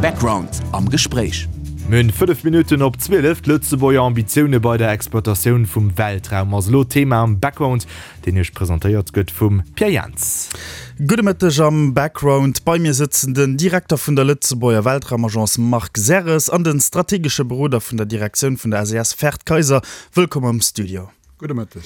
Background am Gespréich. Mir hunn 5 Minutten op 12. D'Lëtzebuerger Ambitioune bei der Exploitatioun vum Weltraum ass elo Thema am Background, deen Iech presentéiert gëtt vum Pierre Jans. Gudde Mëtteg am Background. Bei mir sëtzen den Direkter vun der Lëtzebuerger Weltraumagence Marc Serres an den strategesche Beroder vun der Direktioun vun der SES Ferd Kayser. Wëllkomm am Studio. Gudde Mëtteg.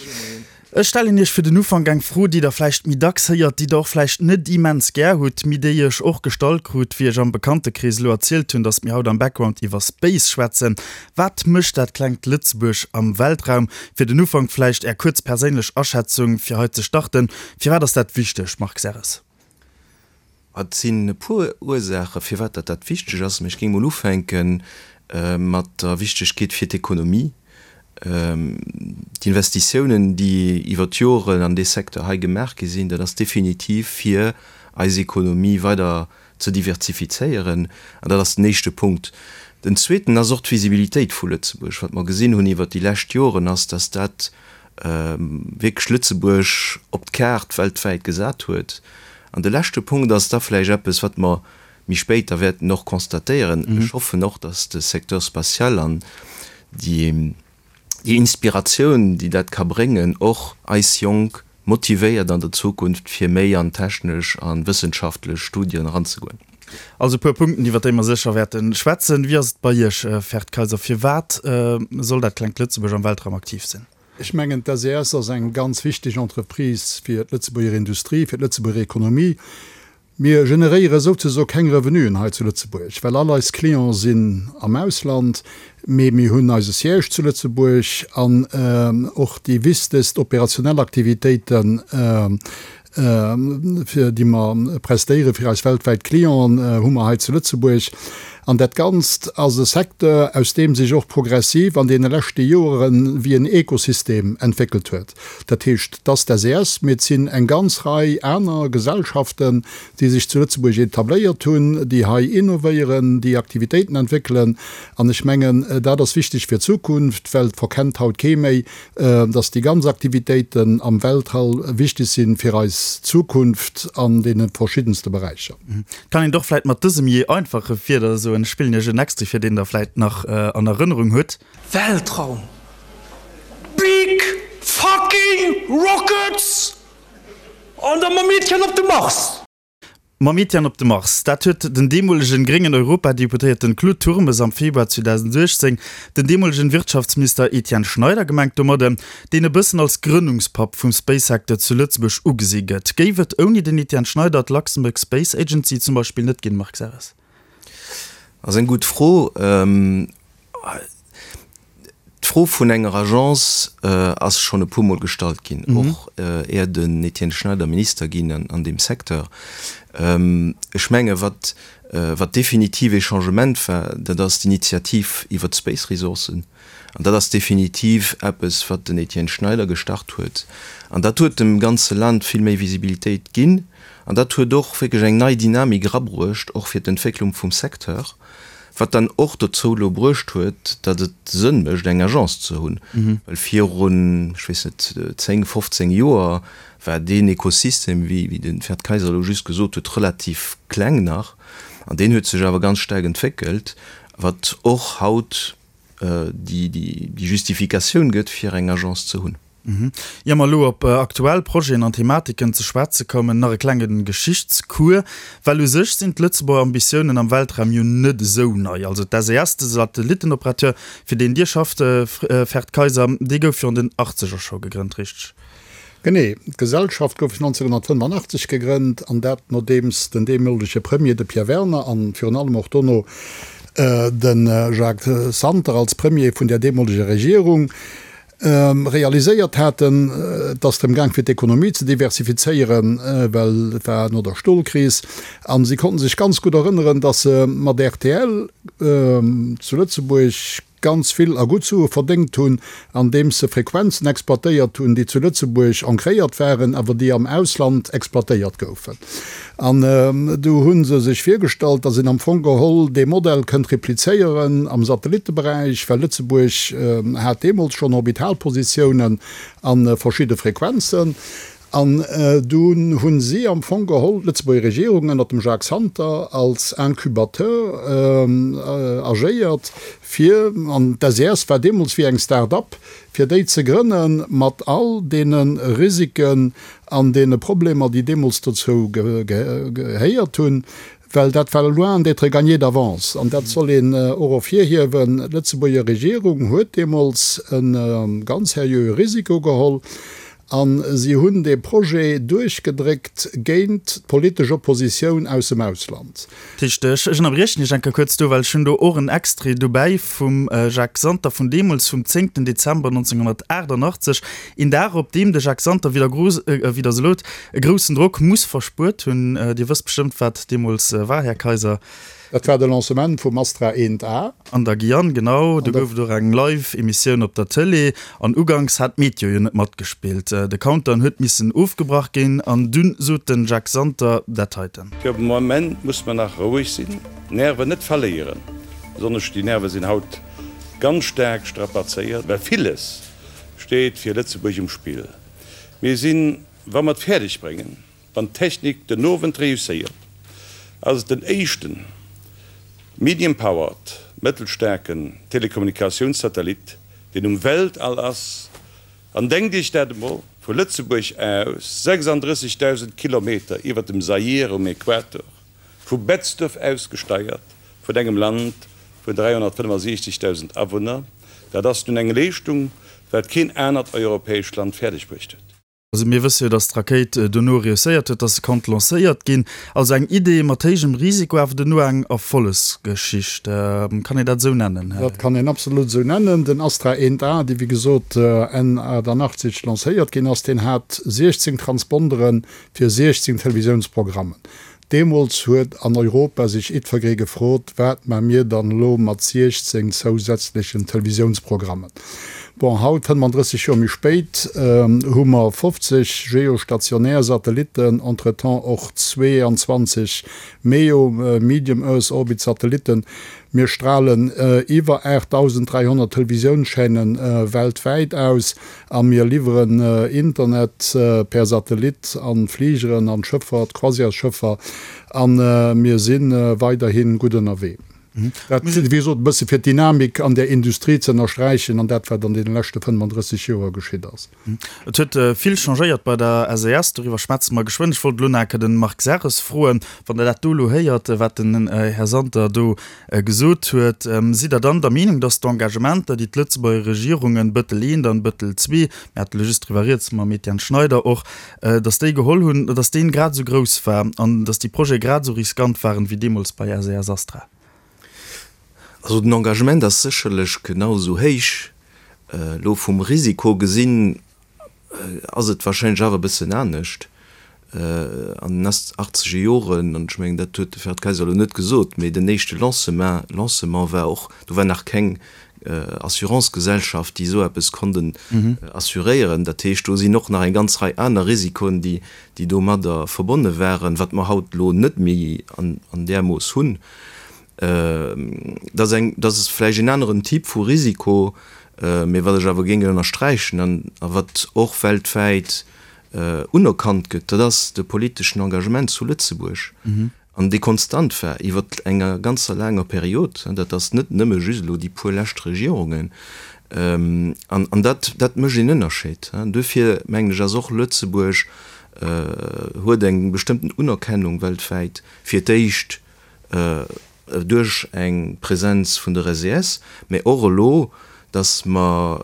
Ech stellen Iech fir den Ufank eng Fro, déi Der vläicht méi dacks héiert, déi Der och vläicht net immens gär hutt, mee déi ech och gestallt krut, wéi ech am Bekanntekrees elo erzielt hunn, dass mir haut am Background iwwer Space schwätzen. Wat mécht dat klengt Lëtzebuerg am Weltraum? Fir den Ufank vläicht Är kuerz perséinlech Aschätzung, fir hei ze starten. Firwat ass dat wichteg, Marc Serres? Et sinn e puer Ursaache firwat dat dat wichteg ass, mä ech géing mol ufänke mat der Wichtegkeet fir d'Ekonomie. D'Investitiounen, déi iwwer d'Joren an dee Secteur hei gemaach gi sinn, dat ass definitiv fir eis Ekonomie weider ze diversifizéieren, an dat ass den éischte Punkt. Den zweeten ass och d'Visibilitéit vu Lëtzebuerg. Wat mer gesinn hunn iwwert déi lescht Joren ass, dass dat wierklech Lëtzebuerg op d'Kaart weltwäit gesat huet. An de leschte Punkt ass da vläicht eppes, wat mer méi spéit da wäerten och constatéieren, Ech hoffen och, dass de Secteur spatial an déi Inspiratioun, déi dat ka bréngen, och eis Jonk motivéiert an der Zukunft, fir méi an technesch a wëssenschaftlech Studien eranzegoen. Also e puer Punkten, iwwer déi mer sécher wäerte schwätzen. Wéi ass et bei Iech, Ferd Kayser? Firwat soll dat klengt Lëtzebuerg am Weltraum aktiv sinn? Ech mengen, d'SES ass eng ganz wichteg Entreprise fir d'Lëtzebuerger Industrie, fir d'Lëtzebuerger Ekonomie. Mir generéiere souzesoe keng Revenuen hei zu Lëtzebuerg, well all eis Clienten sinn am Ausland, mee mir hunn eise Siège zu Lëtzebuerg an och déi wichtegst operationell Aktivitéiten, fir déi mer prestéiere fir eis weltwäit Clienten, hu mer hei zu Lëtzebuerg. An dat Ganzt ass e Secteur, aus deem sech och progressiv an deene leschte Joere wéi en Ekosystem entwéckelt huet. Dat heescht, et ass d'SES, mee et sinn eng ganz Rei aner Gesellschaften, déi sech zu Lëtzebuerg etabléiert hunn, déi hei innovéieren, déi Aktivitéiten entwéckelen. An ech mengen, dat ass wichteg fir d'Zukunft, well et verkennt haut kee méi, dass déi ganz Aktivitéiten am Weltall wichteg si fir eis Zukunft an deene verschiddenste Beräicher. Kann een et och vläit mat dësem jee einfache Wierder soen? Ech spillen Iech en Extrait fir, deen Der vläit nach an Erënnerung hutt. Weltraum! Big fucking rockets! An da mam Etienne op de Mars! Mam Etienne op de Mars, dat huet den deemolegen gréngen Europadeputéierten Claude Turmes am Februar 2018 den deemolegen Wirtschaftsminister Etienne Schneider gemengt domadde, deen e bëssen als Grënnungspapp vum Space-Secteur zu Lëtzebuerg ugesi gëtt. Géif et ouni den Etienne Schneider d'Luxembourg Space Agency zum Beispill net ginn, Marc Serres? Ass eng gutt Fro. D'Fro vun enger Agence ass schonn e puermol gestallt ginn, och är den Etienne Schneider Minister ginn an deem Secteur. Ech menge wat wat definitiv ee Changement war, dat ass d'Initiativ iwwert d'Space Resourcen. An dat ass definitiv eppes, wat den Etienne Schneider gestart huet. An dat huet dem ganze Land vill méi Visibilitéit ginn. An dat huet och wierklech eng nei Dynamik erabruecht, och fir d'Entwécklung vum Secteur. Wat dann och dozou elo bruecht huet, datt et Sënn mécht, eng Agence ze hunn. Well virun, ech weess net, 10, 15 Joer war deen Ekosystem, wéi de Ferd Kayser elo just gesot huet, relativ kleng nach. An deen huet sech awer ganz staark entwéckelt, wat och haut déi Justifikatioun gëtt, fir eng Agence ze hunn. Ier mer elo op aktuell Projeten an Thematiken ze schwätze kommen, nach e klenge Geschichtscours, well u sech sinn d'Lëtzebuerger Ambitiounen am Weltraum jo net esou nei. Also d'SES, de Satellittenoperateur, fir deen Dir schafft, Ferd Kayser, dee gouf jo an den Achtzeger scho gegrënnt, richteg? Genee, d'Gesellschaft gouf 1985 gegrënnt, an dat nodeems den deemolege Premier, de Pierre Werner, an virun allem och dono de Jacques Santer als Premier vun där deemoleger Regierung, realiséiert haten, et ass drëm gaang fir d'Ekonomie ze diversifizéieren, well et war no der Stolkris, a si konnten sech ganz gutt erënneren, datt se mat rtl zu Lëtzebuerg ganz vill a gutt Sue verdéngt hunn, andeems se Frequenzen exploitéiert hunn, déi zu Lëtzebuerg ancréiert waren, awer déi am Ausland exploitéiert goufen. An du hu se sech virgestallt, datt een am Fong geholl dee Modell kënnt replizéieren am Satellitteberäich, well Lëtzebuerg hat deemools schonn Orbitalpositiounen a verschidde Frequenzen. An dunn hu si am Fong geholl d'Lëtzebuerger Regierung ënnert dem Jacques Santer als Incubateur agéiert, fir, an d'SES war deemools wéi eng Start-up, fir déi ze grënne mat all deene Risiken an deene Problemer, déi deemools dozou gehéiert hunn, well dat war loin d'être gagné d'avance. An dat soll een och ervirhiewen, D'Lëtzebuerger Regierung huet deemools e ganz seriöe Risiko geholl A si hunn dee Projet duerchgedréckt géint d'politesch Oppositioun aus dem Ausland. Dat heescht, ech ënnerbriechen Iech eng Kéier kuerz do, well ech hunn do och en Extrait dobäi vum Jacques Santer vun deemools, vum zéngten Dezember 1988, een Dag, op deem de Jacques Santer wéi der se e groussen Drock muss verspuert hunn. Dir wësst bestëmmt, wat deemools war, Här Kaiser. Dat war de Lancement vum Astra 1A. An der Guyane, genau. Do gouf et och eng Live-Emissioun op der Tëlee. An uganks hat d'Meteo jo net matgespillt. De Countdown huet missen ofgebrach ginn. An dunn sot den Jacques Santer dat heiten. Fir de Moment muss mer nach roueg sinn, d'Nerven net verléieren. Besonnesch déi Nerve sinn haut ganz staark strapazéiert, well villes steet fir Lëtzebuerg um Spill. Mir sinn, wa mer et fäerdeg bréngen, Wann d'Technik den Owend reusséiert, ass et den éischten medium-powered, mëttelstaarken, Telekommunikatiounssatellit, deen um Weltall ass. An denkt Iech dat emol, vu Lëtzebuerg aus 36.000 Kilometer iwwer dem Zaire um Äquator, vu Betzdorf aus gesteiert, vun engem Land vun 365.000 Awunner, dat ass nun eng Leeschtung, wat keen anert europäescht Land fäerdegbruecht huet. Also mir wësse jo, datt d'Rakéit dono reusséiert huet, datt se konnt lancéiert ginn. Also eng Idee mat héijem Risiko, awer dono eng Erfollegsgeschicht. Kann een dat esou nennen, Här? Dat kann een absolut esou nennen. Den Astra 1A, dee wéi gesot Enn 88 lancéiert ginn ass, deen hat 16 Transpondere fir 16 Televisiounsprogrammen. Deemools huet an Europa sech jiddfergee gefrot, Wat ma mir dann elo mat 16 zousätzlechen Televisiounsprogrammen? Bon, haut, 35 Joer méi spéit, hu mer 50 geostationär Satellitten, entretemps och 22 MEO, Medium Earth Orbit Satellitten. Mir stralen iwwer 8.300 Televisiounschaînen weltwäit aus. A mir liwweren Internet per Satellit an d'Fligeren, an d'Schëffer, d'Croisièresschëffer. A mir si weiderhi gutt ënnerwee. Dat, wéi gesot, e bësse fir d'Dynamik an där Industrie ze ënnersträichen an dat, wat an deene leschte 35 Joer geschitt ass. Et huet vill changéiert bei der SES, doriwwer schwätze mer geschwënn. Ech wollt elo nach eng Kéier de Marc Serres froen, wann Der dat do elo héiert, wat den Här Santer do gesot huet. Sidd Der dann der Meenung, datt d'Engagementer, déi d'Lëtzebuerger Regierungen, Bëttel I an Bëttel ii, mir hate lo just driwwer rieds mam Etienne Schneider och, datt déi geholl hunn, datt deen grad esou grouss war an datt déi Projete grad esou riskant waren, wéi deemools bei SES Astra? Also den Engagement ass sécherlech genau esou héich. Elo vum Risiko gesinn, ass et wahrscheinlech awer e bëssen anescht. An den achtzeger Joren, an ech mengen, dat huet de Ferd Kayser elo net gesot, mee den éischte Lancement, Lancement war och, do war nach keng Assurancegesellschaft, déi esou eppes konnt assuréieren. Dat heescht, do sinn och nach eng ganz Rei aner Risikoen, déi, déi domadder verbonne waren, wat mer haut elo net méi an där Mooss hunn. Dat ass eng, dat ass vläicht en aneren Typ vu Risiko, mee wat ech awer géing ënnersträichen an a wat och weltwäit unerkannt gëtt, dat ass de politeschen Engagement zu Lëtzebuerg an dee konstant war iwwer enger ganzer laanger Period. Dat ass net nëmme just elo déi puer lescht Regierungen. An an dat, dat mécht een Ënnerscheed. Duerfir mengen ech ass och Lëtzebuerg huet eng bestëmmten Unerkennung weltwäit fir d'éischt duerch eng Präsenz vun der SES, mä och elo, dass mer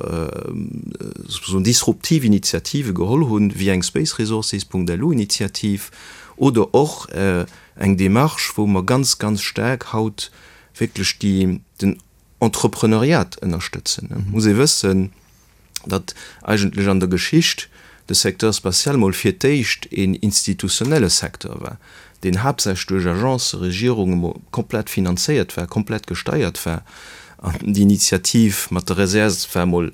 souzesoen disruptiv Initiative geholl hunn, wéi eng Spaceresources.lu-Initiativ oder och eng Démarche, wou mer ganz, ganz staark haut wierklech déi, den Entrepreneuriat ënnerstëtzen. Et muss ee wëssen, datt eigentlech an der Geschicht de Secteur spatial mol fir d'éischt een institutionelle Secteur war, deen haaptsächlech duerch Agencen, Regierunge mol komplett finanzéiert war, komplett gesteiert war. An déi Initiativ mat der SES war mol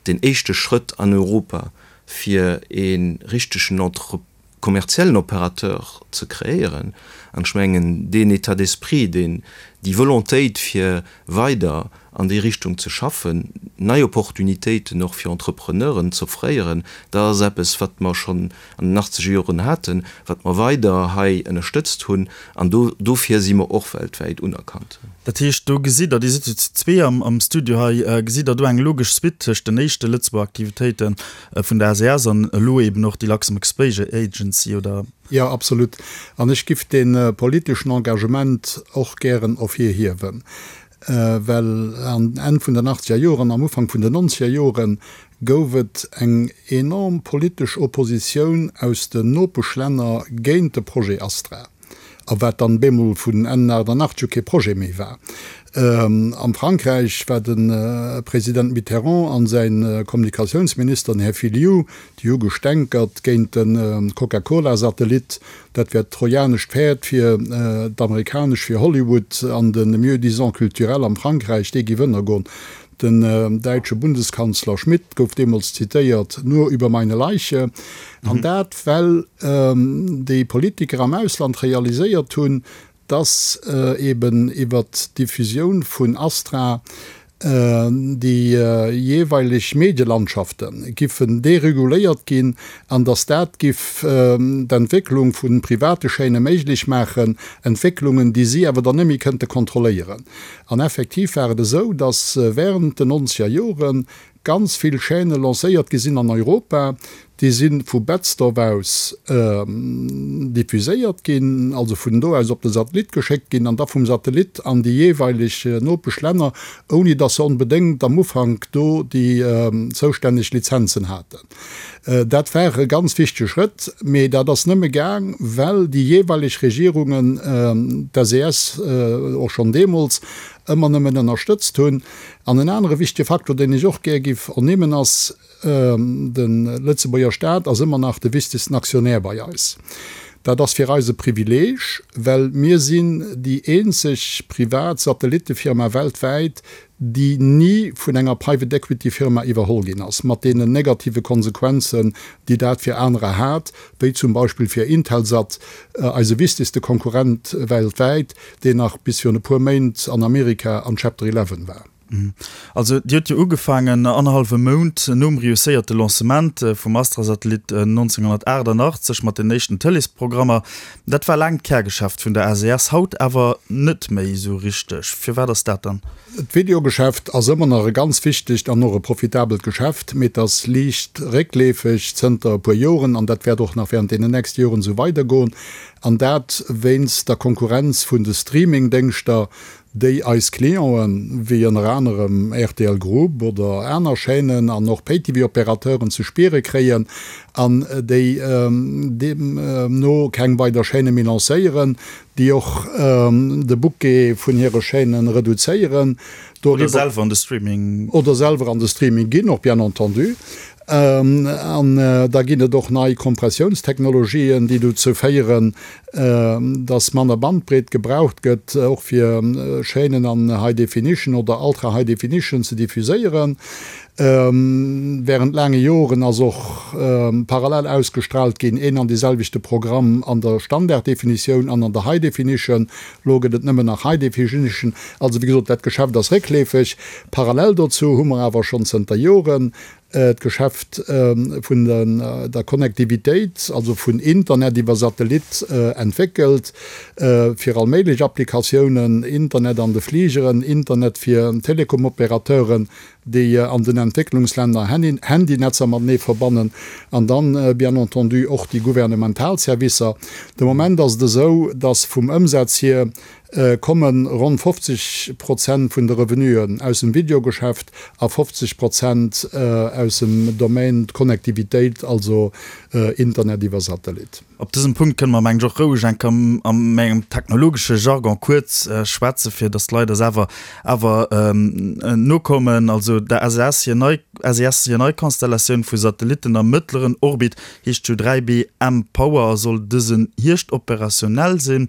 deen éischte Schrëtt an Europa, fir ee richtegen Entre kommerziellen Opérateur ze kreéieren. An ech mengen, deen État d'esprit, deen. Déi Volontéit fir weider an déi Richtung ze schaffen, nei Opportunitéiten och fir Entrepreneuren z'offréieren, dat ass eppes, wat mer schonn an den achtzeger Joren haten, wat mer weider hei ënnerstëtzt hunn, an do dofir si mer och weltwäit unerkannt. Dat heescht, do gesitt Der, Dir sidd jo zu zwee am Studio hei, gesitt Der do eng logesch Suite tëscht den éischte Lëtzebuerger Aktivitéite vun der SES an elo eben och déi Luxembourg Space Agency, oder? Jo, absolut. An ech giff dee politeschen Engagement och gären ervirhiewen, well an Enn vun den achtzeger Joren, am Ufank vun den nonzeger Jore gouf et eng enorm politesch Oppositioun aus den Nopeschlänner géint de Projet Astra, a wat dann bemol vun Enn 88 u kee Projet méi war. Am Frankräich war de President Mitterrand an säi Kommunikatiounsminister, den Här Fillioux, Déi hu gestänkert géint de Coca-Cola-Satellit. Dat wär d'trojanescht Päerd fir d'amerikanesch, fir Hollywood an de Mieux-disant culturel am Frankräich, dee giff ënnergoen. Den däitsche Bundeskanzler Schmidt gouf deemools zitéiert, Nur über meine Leiche. An dat, well déi Politiker am Ausland realiséiert hunn, dass eben iwwert d'Diffusioun vun Astra déi jeeweileg Medielandschafte giffen dereguléiert ginn an dass dat giff d'Entwécklung vu private Chaîne méiglech maachen, Entwécklungen, déi si awer dann net méi kënnte kontrolléieren. An effektiv war et esou, dass während den nonzeger Joren Ganz vill Chaîne lancéiert gi sinn an Europa, déi si vu Betzdorf aus diffuséiert ginn, also vun do aus op de Satellit geschéckt ginn an da vum Satellit an déi jeeweileg Nopeschlänner, ouni datt se onbedéngt am Ufank do déi zoustänneg Lizenzen haten. Dat war e ganz wichtege Schrëtt, mee dat ass nëmme gaang, well déi jeeweileg Regierungen d'SES och schonn deemools ëmmer nëmmen ënnerstëtzt hunn. An en anere wichtege Faktor, deen ech och gär giff ernimmen, ass, De Lëtzebuerger Staat ass ëmmer nach de wichtegsten Aktionär bei eis. Dat ass fir eis e Privileeg, well mir sinn déi eenzeg privat Satellittefirma weltwäit, déi ni vun enger Private Equity Firma iwwerholl ginn ass, mat deenen negative Konsequenzen, déi dat fir anerer hat, wéi zum Beispill fir Intelsat, eise wichtegste Konkurrent weltwäit, deen nach bis virun e puer Méint an Amerika an Chapter 11 war. Also Dir hutt jo ugefaangen annerhallwe Mount nom reusséierte Lancement vum Astra-Satellit 1988 mat den éischten Tëleesprogrammer. Dat war laang d'Kärgeschäft vun der SES, haut awer net méi esou richteg. Firwat ass dat dann? D'Videogeschäft ass ëmmer nach e ganz wichtegt an och e profitabelt Geschäft, mee et ass liicht réckleefeg zënter e puer Joren an dat wäert och nach während deenen nächste Joren esou weidergoen. An dat wéinst der Konkurrenz vun de Streaming-Déngschter, déi eis Clienten, wéi ënner anerem rtl Group oder aner Chaînen an och Pay-TV-Opérateuren ze spiere kréien an déi deemno keng weider Chaîne méi lancéieren, déi och de Bouquet vun hire Chaîne reduzéieren. Oder selwer an de Streaming. Oder selwer an de Streaming ginn, och bien entendu. An da ginn et och nei Kompressiounstechnologien, déi dozou féieren, dass manner Bandbreet gebraucht gëtt, och fir Chaînen an High Definition oder Ultra High Definition ze diffuséieren. Während laange Joren ass och parallel ausgestraalt ginn, een an deeselwechte Programm an der Standarddefinitioun an an der High Definition. Elo gëtt et nëmmen nach High Definition. Also, wéi gesot, dat Geschäft ass réckleefeg. Parallel dozou hu mer awer schonn zënter Joren d'Geschäft vun der Connectivitéit, also vun Internet iwwer Satellit, entwéckelt fir all méiglech Applikatiounen, Internet an de Fligeren, Internet fir Telekomoperateuren, déi an den Entwécklungslänner Handynetzer matenee verbannen, an dann bien entendu och déi gouvernemental Servicer. De Moment ass et esou, dass vum Ëmsaz hier komme ronn 50 Prozent vun de Revenuen aus dem Videogeschäft a 50 Prozent aus dem Domaine Connectivitéit, also Internet iwwer Satellit. Op dësem Punkt kënne mer, mengen ech, och roueg eng Kéier a mengem technologesche Jargon kuerz schwätzen, fir datt d'Leit eis awer awer nokommen. Also der SES hir nei SES hir nei Konstellatioun vu Satellitten am mëttleren Orbit heescht jo 3B mPOWER a soll dësen Hierscht operationell sinn.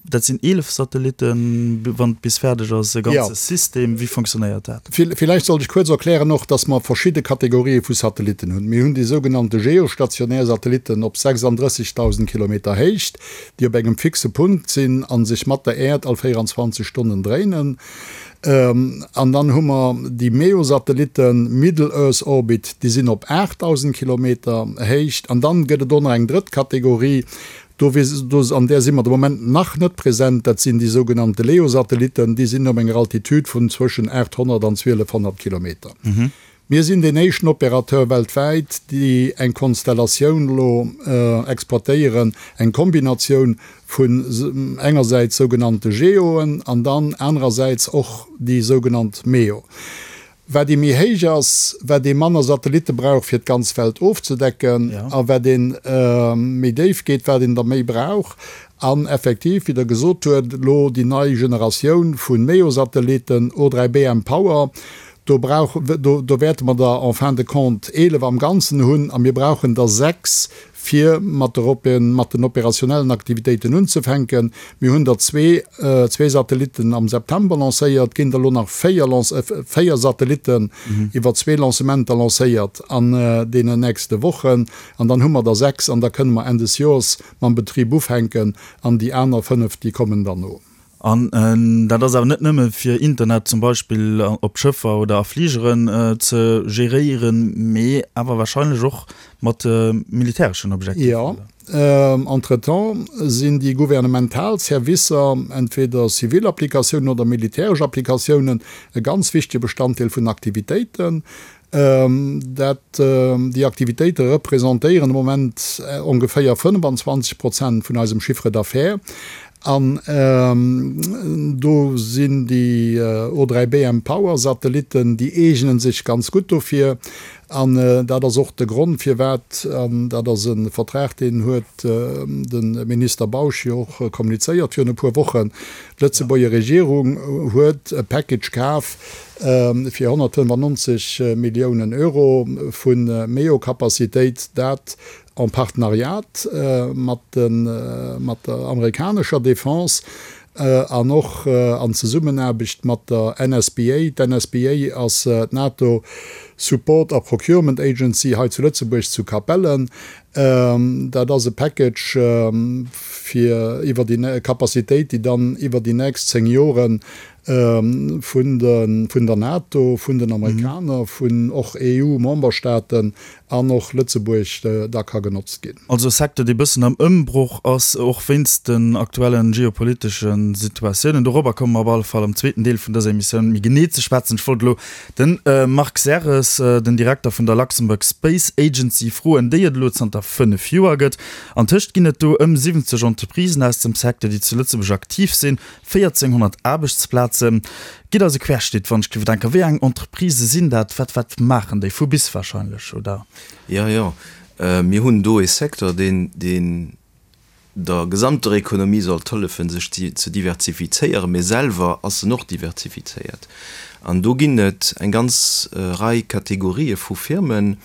Dat sinn 11 Satellitten, wann et bis fäerdeg ass, e ganze System. Wéi fonctionnéiert dat? Villäicht sollt ech kuerz erklären och, dass mer verschidde Kategorië vu Satellitten hunn. Mir hunn déi sougenannte geostationär Satellitten op 36.000 Kilometer Héicht, déi op engem fixe Punkt sinn a sech mat der Äerd all 24 Stonnen dréinen. An dann hu mer déi MEO-Satellitten, Middle Earth Orbit, déi sinn op 8.000 Kilometer Héicht. An dann gëtt et och nach eng drëtt Kategorie, Do, an där si mer de Moment nach net present, dat sinn déi sougenannte LEO-Satellitten, déi sinn op enger Altitude vun zwëschen 800 an 1200 Kilometer. Mir sinn deen éischten Opérateur weltwäit, déi eng Konstellatioun elo exploitéieren, eng Kombinatioun vun engersäits sougenannte GEOen an dann anerersäits och déi sougenannt MEO. Wat ee méi héich ass, wat ee manner Satellitte brauch fir d'ganz Welt ofzedecken, a wat ee méi déif geet, wat een der méi brauch. An effektiv, wéi Der gesot huet, elo déi nei Generatioun vu MEO-Satellitten, O3B mPOWER, do brauch, do, do wäerte mer der en fin de compte 11 am Ganzen hunn a mir brauchen der 6, fir mat der mat den operationellen Aktivitéiten unzefänken. Mir hunn der zwee zwee Satellitten am September lancéiert, ginn der elo nach véier véier Satellitten iwwer zwee Lancementer lancéiert an deenen nächste Wochen. An dann hu mer der sechs an da kënne mer Enn des Joers mam Betrib ufänken an déi aner fënnef, déi kommen dann no. An dat ass awer net nëmme fir Internet zum Beispill op Schëffer oder a Fligeren ze geréieren, mee awer wahrscheinlech och mat militäreschen Objektiver, Jo, entretemps sinn déi gouvernemental Servicer, entweder zivil Applikatiounen oder militäresch Applikatiounen, e ganz wichtege Bestanddeel vun Aktivitéiten. Dat, déi Aktivitéite representéieren de Moment ongeféier 25 Prozent vun eisem Chiffre d'affaires. An do sinn déi O3B mPOWER-Satellitten, déi eegene sech ganz gutt dofir. An dat ass och de Grond, firwat, an dat ass e Vertrag, deen huet de Minister Bausch jo och kommunizéiert virun e puer Wochen, d'Lëtzebuerger Regierung huet e Package kaf, fir 195 Milliounen Euro vu MEO-Capacitéit, dat en Partenariat mat der amerikanescher Defense an och an Zesummenaarbecht mat der NSPA. D'NSPA ass d'NATO Support a Procurement Agency hei zu Lëtzebuerg zu Capellen. Dat ass e Package fir iwwer déi Capacitéit, déi dann iwwer déi nächst 10 Joren vun der NATO, vun den Amerikaner, vun och EU-Memberstaaten an och Lëtzebuerg da ka genotzt ginn. Also e Secteur, dee bëssen am Ëmbroch ass, och wéinst den aktuellen geopolitesche Situatiounen. Dorobber komme mer op alle Fall am zweeten Deel vun dëser Emissioun méi genee ze schwätzen. Ech wollt elo de Marc Serres, den Direkter vun der Luxembourg Space Agency, froen, déi et elo zanter 5 Joer gëtt. Antëscht ginn et do ëm 70 Entreprisen aus dem Secteur, déi zu Lëtzebuerg aktiv sinn. 1.400 Aarbechtsplazen. Gitt eis e Querschnitt, wann ech géif denken. Wéi eng Entreprisë sinn dat? Wat, wat maachen déi? Vu bis wahrscheinlech, oder? Jo, jo. Mir hunn do e Secteur, deen, deen der gesamter Ekonomie sollt hëllefen, sech ze diversifizéieren, mee selwer ass en och diversifizéiert. An do ginn et eng ganz Rei Kategorië vu Firmen.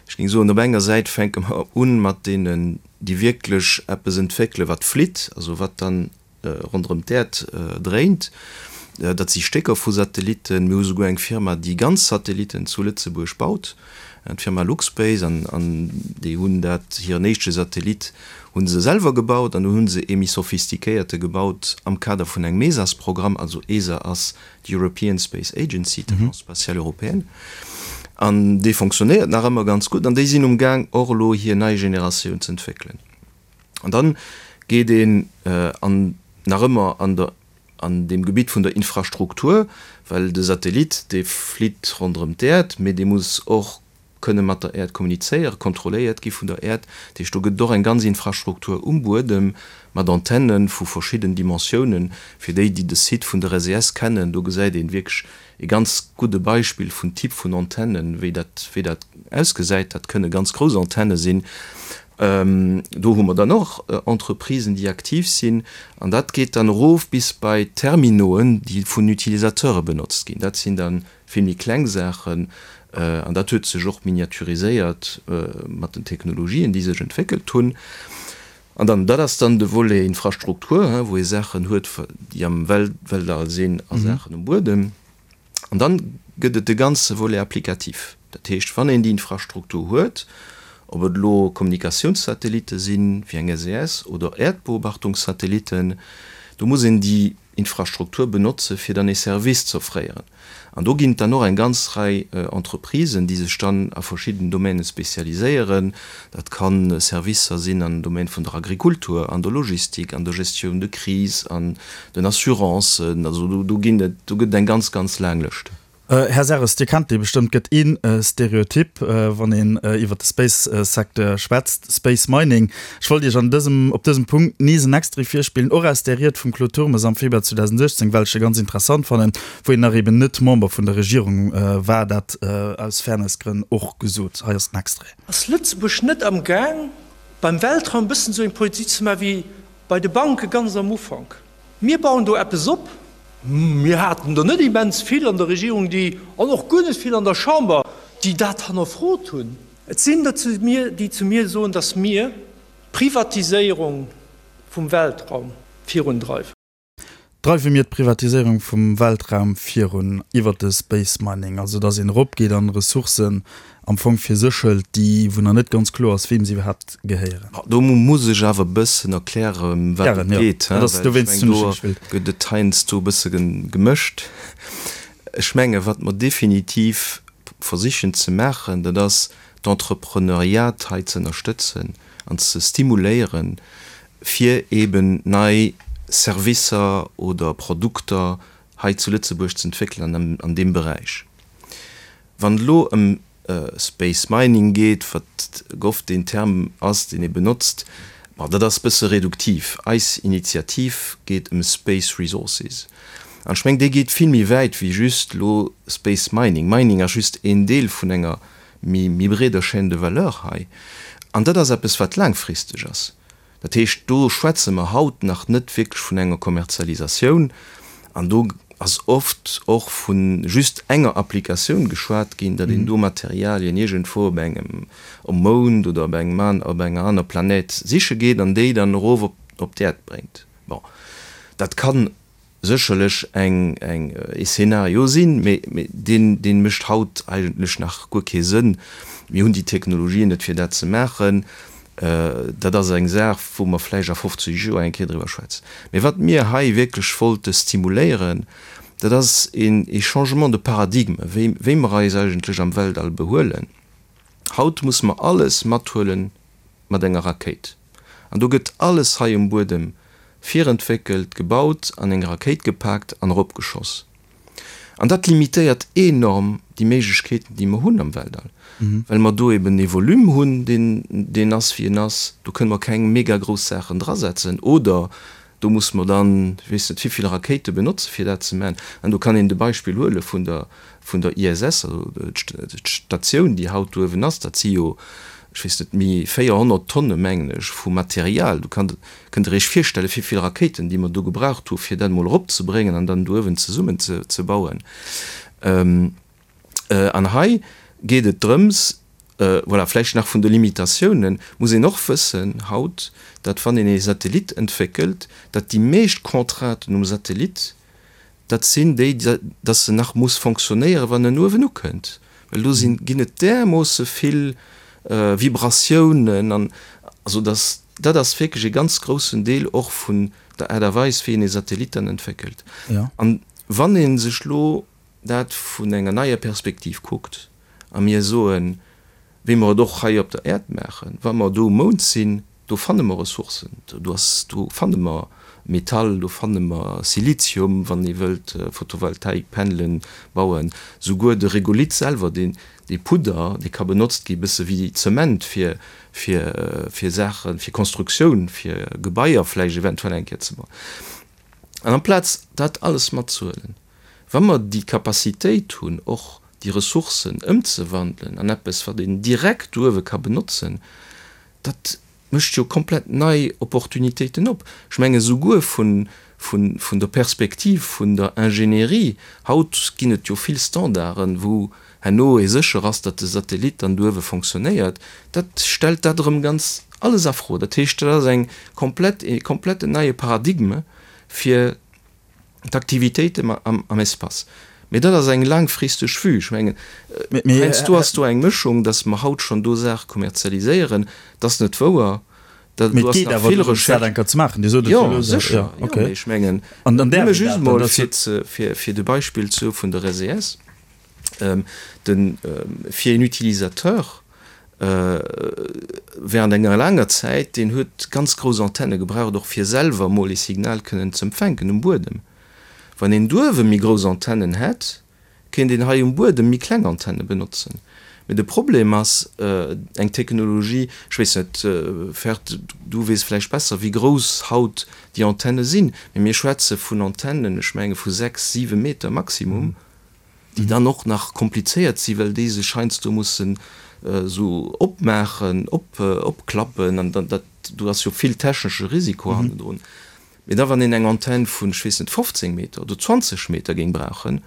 Ech géing soen, op enger Säit fänke mer u mat deenen, déi wierklech eppes entwéckelen, wat flitt, also wat dann ronderëm d'Äerd dréint. Dat si Stécker vu Satellitten. Mir hu souguer eng Firma, déi ganz Satellitten zu Lëtzebuerg baut, d'Firma Luxspace. An déi hunn dat, hiren éischte Satellit hu se selwer gebaut an dunn hu se ee méi sophistiquéierte gebaut am Kader vun engem ESAS-Programm. Also ESA ass d'European Space Agency, d'Agence spatiale européenne. An dee fonctionnéiert nach ëmmer ganz gutt an déi sinn umgaang och elo hir nei Generatioun z'entwéckelen. An dann geet een an nach ëmmer an der, an deem Gebitt vun der Infrastruktur, well de Satellit, dee flitt ronderëm d'Äerd, mee dee muss och kënne mat der Äerd kommunizéieren, kontrolléiert gi vun der Äerd. Dat heescht, do gëtt et och eng ganz Infrastruktur um Buedem mat Antenne vu verschidden Dimensiounen. Fir déi, déi de Site vun der SES kennen, do gesäit een wierklech e ganz gudde Beispill vun Typ vun Antennen, wéi dat, wéi dat ausgesäit. Dat kënne ganz grouss Antenne sinn. Do hu mer dann och Entreprisen, déi aktiv sinn. An dat geet dann erof bis bei Terminoen, déi vun Utilisateure benotzt ginn. Dat sinn da vill méi kleng Saachen. An dat huet sech och miniaturiséiert mat den Technologien, déi sech entwéckelt hunn. An dann, dat ass dann de Volet Infrastruktur, wou ee Saachen huet, déi am Weltall sinn a Saachen um Buedem. An dann gëtt et de ganze Volet applicatif. Dat heescht, wann een déi Infrastruktur huet, ob et elo Kommunikatiounssatellitte sinn, wéi eng SES, oder Äerdbeobachtungssatellitten, do muss een déi Infrastruktur benotze fir dann ee Service z'offréieren. An do ginn et dann och eng ganz Rei Entreprisen, déi sech dann a verschidden Domäne spezialiséieren. Dat ka Servicer sinn am Domaine vun der Agrikultur, an der Logistik, an der Gestioun de crise, an den Assurancen. Also do ginn et, do gëtt et eng ganz, ganz laang Lëscht. Här Serres, Dir kennt dee bestëmmt, gëtt ee Stereotyp, wann een iwwer de Space-Secteur schwätzt, Space Mining. Ech wollt Iech an dësem, op dësem Punkt nees en Extrait virspillen, och aus där Ried vum Claude Turmes am Februar 2018, well ech se ganz interessant fannen, wou een nach eben net Member vun der Regierung war, dat aus Fairness-Grënn och gesot. Hei ass den Extrait. Ass Lëtzebuerg net am Gaang, beim Weltraum e bëssen esou eng Politik ze maachen wéi bei de Banke ganz am Ufank? Mir bauen do eppes op. Mir haten der net immens vill an der Regierung, déi, an och guer net vill an der Chamber, déi dat hannerfrot hunn. Et sinn der zu mir, déi zu mir soen, datt mir d'Privatiséierung vum Weltraum virundreiwen. Dreiwe mir d'Privatiséierung vum Weltraum virun iwwert de Space Mining, also datt een eropgeet an Ressourcen am Fong fir sech hëlt, déi, wou nach net ganz kloer ass, weem se iwwerhaapt gehéieren. Do muss ech awer e bëssen erklären, ëm wat et geet, well ech mengen, do gëtt et heiansdo e bësse gemëscht. Ech menge wat mer definitiv versichen ze maachen, dat ass d'Entrepreneuriat hei ze ënnerstëtzen an ze stimuléieren, fir eeben nei Servicer oder Produkter hei zu Lëtzebuerg ze entwéckelen an deem Beräich. Wann et elo ëm Space Mining geet, wat oft deen Term ass, deen ee benotzt, bon, dat ass e bësse reduktiv. Eis Initiativ geet ëm Space Resources. An ech mengen, déi geet vill méi wäit wéi just elo Space Mining. Mining ass just een Deel vun enger méi breeder Chaîne de valeur hei. An dat ass eppes, wat laangfristeg ass. Dat heescht, do schwätze mer haut nach net wierklech vun enger Kommerzialisatioun an do ass oft och vu just enger Applikatioun geschwat ginn, datt een do Materialien iergendwou op engem, um Mound oder op engem an, op enger aner Planète siche geet an déi dann erof op, op d'Äerd bréngt. Bon, dat kann sécherlech eng, eng, ee Szenario sinn, mee, mee deen, dee mécht haut eigentlech nach guer kee Sënn. Mir hunn déi Technologien net, fir dat ze maachen. Dat ass eng Saach, wou mer vläicht a 50 Joer eng Kéier driwwer schwätzen. Mee wat mir hei wierklech wollte stimuléieren, dat ass een, ee Changement de paradigme, wéi, wéi mer eis eigentlech am Weltall behuelen. Haut musse mer alles mathuelen mat enger Rakéit. An do gëtt alles hei um Buedem virentwéckelt, gebaut, an eng Rakéit gepaakt an eropgeschoss. An dat limitéiert enorm déi Méiglechkeeten, déi mer hunn am Weltall, well mer do eben ee Volume hunn, deen deen ass, wéi en ass. Do kënne mer keng mega grouss Saachen drasetzen oder do musse mer dann, ech weess net wivill Rakéite benotze fir dat ze maachen. An do kann een de Beispill huele vun der vun der ISS, also d'Statioun, déi haut do uewen ass, dat si jo, ech weess net, méi 400 Tonne, mengen ech, vu Material. Do kann, kënnt Der Iech virstellen, wéi vill Rakéiten, déi mer do gebraucht hu fir dat emol eropzebréngen an dann do uewen zesummen ze bauen. An hei geet et drëms, voilà, vläicht nach vun de Limitatiounen muss een och wëssen haut, datt wann een ee Satellit entwéckelt, datt déi meescht Contrainten um Satellit, Dat sinn déi, dass se nach muss fonctionnéieren, wann en uewen ukënnt, well do sinn, ginn et därmoosse vill Vibratiounen an, also dass, dat ass wierklech e ganz groussen Deel och vun der Aart a Weis, wéi een ee Satellit dann entwéckelt. An wann ee sech elo dat vun enger neier Perspektiv kuckt a mir soen, wéi mer et och hei op der Äerd maachen, wa mer do um Mound sinn, do fanne mer Ressourcen, do ass, do fanne mer Metall, do fanne mer Silizium, wann ee wëllt Photovoltaikpanelen bauen, souguer de Regolith selwer, deen, dee Pudder, dee ka benotzt gi bësse wéi Zement fir, fir, fir Saachen, fir Konstruktioun, fir Gebaier vläicht eventuell eng Kéier ze bauen. An amplaz dat alles matzehuelen, wa mer déi Capacitéit hunn, och déi Ressourcen ëmzewandelen an eppes, wat een direkt uewe ka benotzen, dat mécht jo komplett nei Opportunitéiten op. Ech menge souguer vun, vun, vun der Perspektiv vun der Ingénierie, haut ginn et jo vill Standarden, wou herno ee sécher ass, datt de Satellit dann do uewe fonctionnéiert, dat stellt dat erëm ganz. Alles a Fro. Dat heescht, dat ass eng komplett, e kompletten neie Paradigme fir d'Aktivitéiten am Espace. Mee dat ass eng laangfristeg Vue. Ech mengen, heiansdo ass do eng Mëschung, datt mer haut schonn do Saache kommerzialiséieren. Dat ass net wouer. Dat Mee et geet awer dorëms, dat eng Kéier ze maachen. Dir sot et jo elo. Jo, sécher. Jo, mee ech mengen, nëmme just emol fir, fir de Beispill ze hu vun der SES, de, fir een Utilisateur während enger laanger Zäit, deen huet ganz grouss Antenne gebraucht, och fir selwer emol ee Signal kënnen z'empfänken um Buedem. Wann een douewe méi grouss Antennen hätt, kéint een hei um Buedem méi kleng Antenne benotzen. Mee de Problem ass eng Technologie, ech weess net, Ferd, du weess vläicht besser, wéi grouss haut déi Antenne sinn, mee mir schwätze vun Antennen, ech menge vu 6, 7 Meter maximum. déi dann och nach komplizéiert sinn, well déi sech heiansdo mussen esou opmaachen, opklappen an dann dat, do ass jo vill technesche Risiko hannendrun. Mee da wann een eng Antenn vun, ech weess net, 15 Meter oder 20 Meter géing brauchen,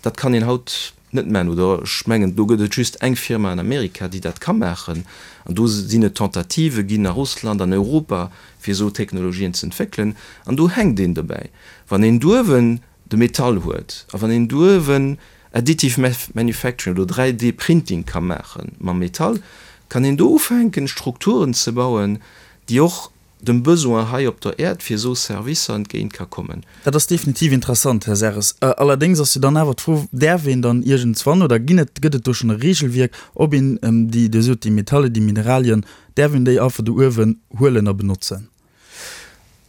dat kann een haut net maachen. Oder ech mengen, do gëtt et just eng Firma an Amerika, déi dat ka maachen. An do sinn et Tentativë ginn a Russland, an Europa, fir esou Technologien ze entwéckelen. An do hänkt een dobäi. Wann een douewen de Metall huet a wann een douewen Additive Manufacturing oder 3D Printing ka maache mam Metall, kann een do ufänken Strukturen ze bauen, déi och dem Besoin hei op der Äerd fir esou Servicer entgéint ka kommen. Dat ass definitiv interessant, Här Serres. Allerdéngs ass jo dann awer d'Fro, Däerf een dann iergendswann oder ginn et, gëtt et do schonn e Regelwierk, ob een déi, Dir sot déi Metalle, déi Mineralien, däerf een déi einfach do uewen huelen a benotzen?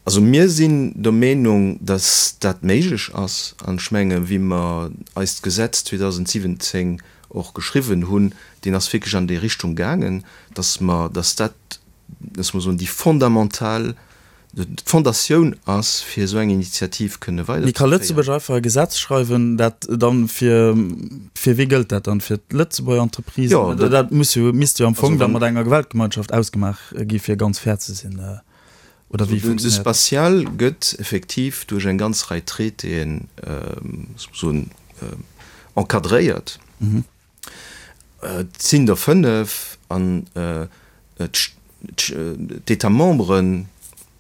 Also mir sinn der Meenung, datt dat méiglech ass. An ech menge wéi mer eist Gesetz 2017 och geschriwwen hunn, deen ass wierklech an déi Richtung gaangen, datt mer, datt dat, datt mer soen, déi fondamental, d'Fondatioun ass, fir esou eng Initiativ kënne Mee ka Lëtzebuerg weiderzeféieren. einfach e Gesetz schreiwen, dat dann fir, fir wee gëllt dat dann? Fir d'Lëtzebuerger Entreprisen? Jo, dat, dat muss jo, misst jo am Fong da mat enger Weltgemeinschaft ausgemaach gi fir ganz fair ze sinn. Oder wéi De funktionéiert dat? Spatial gëtt effektiv duerch eng ganz Rei Traitéen soen encadréiert. Et sinn der 5 an d'États membres,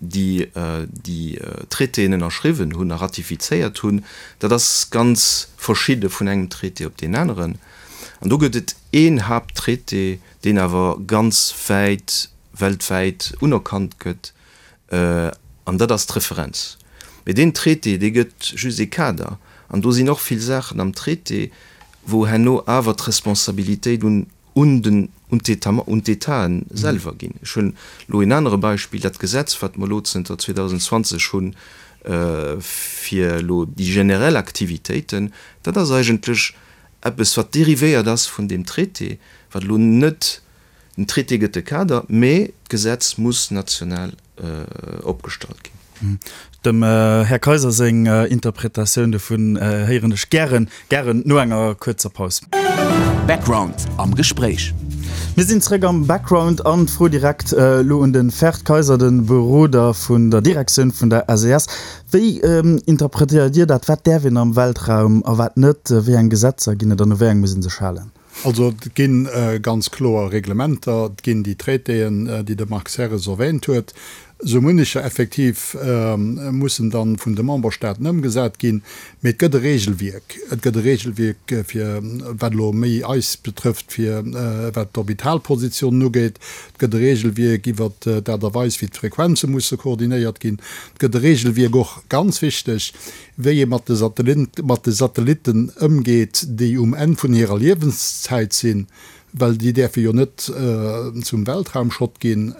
déi déi Traitéen ënnerschriwwen hunn a ratifizéiert hunn, dat ass ganz verschidde vun engem Traité op deen aneren. An do gëtt et een Haapttraité, deen awer ganz wäit weltwäit unerkannt gëtt, an dat ass d'Referenz. Mee deen Traité, dee gëtt just ee Kader, an do sinn och vill Saachen am Traité, wou herno awer d'Responsabilitéit un un den un d'État un d'Étaten selwer ginn. Ech hunn elo een anere Beispill, dat Gesetz, wat mer elo zënter 2020 hunn, fir elo déi generell Aktivitéiten, dat ass eigentlech eppes, wat dérivéiert ass vun deem Traité, wat elo net Den Traité gëtt de Kader, mee d'Gesetz muss national opgestallt ginn. Dem Här Kaiser seng Interpretatioun dovun héieren ech gären, gären no enger kuerzer Paus. Background am Gespréich. Mir sinn zréck am Background an d'Fro direkt elo un de Ferd Kaiser, de Beroder vun der Direktioun vun der SES. Wéi interpretéiert Dir dat? Wat däerf een am Weltraum a wat net? Wéi eng Gesetzer ginn et an u wéi eng muss ee sech halen? Also et gi ganz kloer Reglementer, et ginn déi Traitéen, déi de Marc Serres erwähnt huet. Esou munnecher effektiv mussen dann vun de Memberstaaten ëmgesat ginn. Mee et gëtt e Regelwierk. Et gëtt e Regelwierk fir, wat elo méi eis betrëfft, fir wat d'Orbitalpositionen ugeet. Et gëtt e Regelwierk iwwert d'Aart a Weis, wéi d'Frequenze musse koordinéiert ginn. Et gëtt e Regelwierk och, ganz wichteg, wéi ee mat de Satellitten ëmgeet, déi um Enn vun hirer Liewenszäit sinn, well déi däerfe jo net zum Weltraumschrott ginn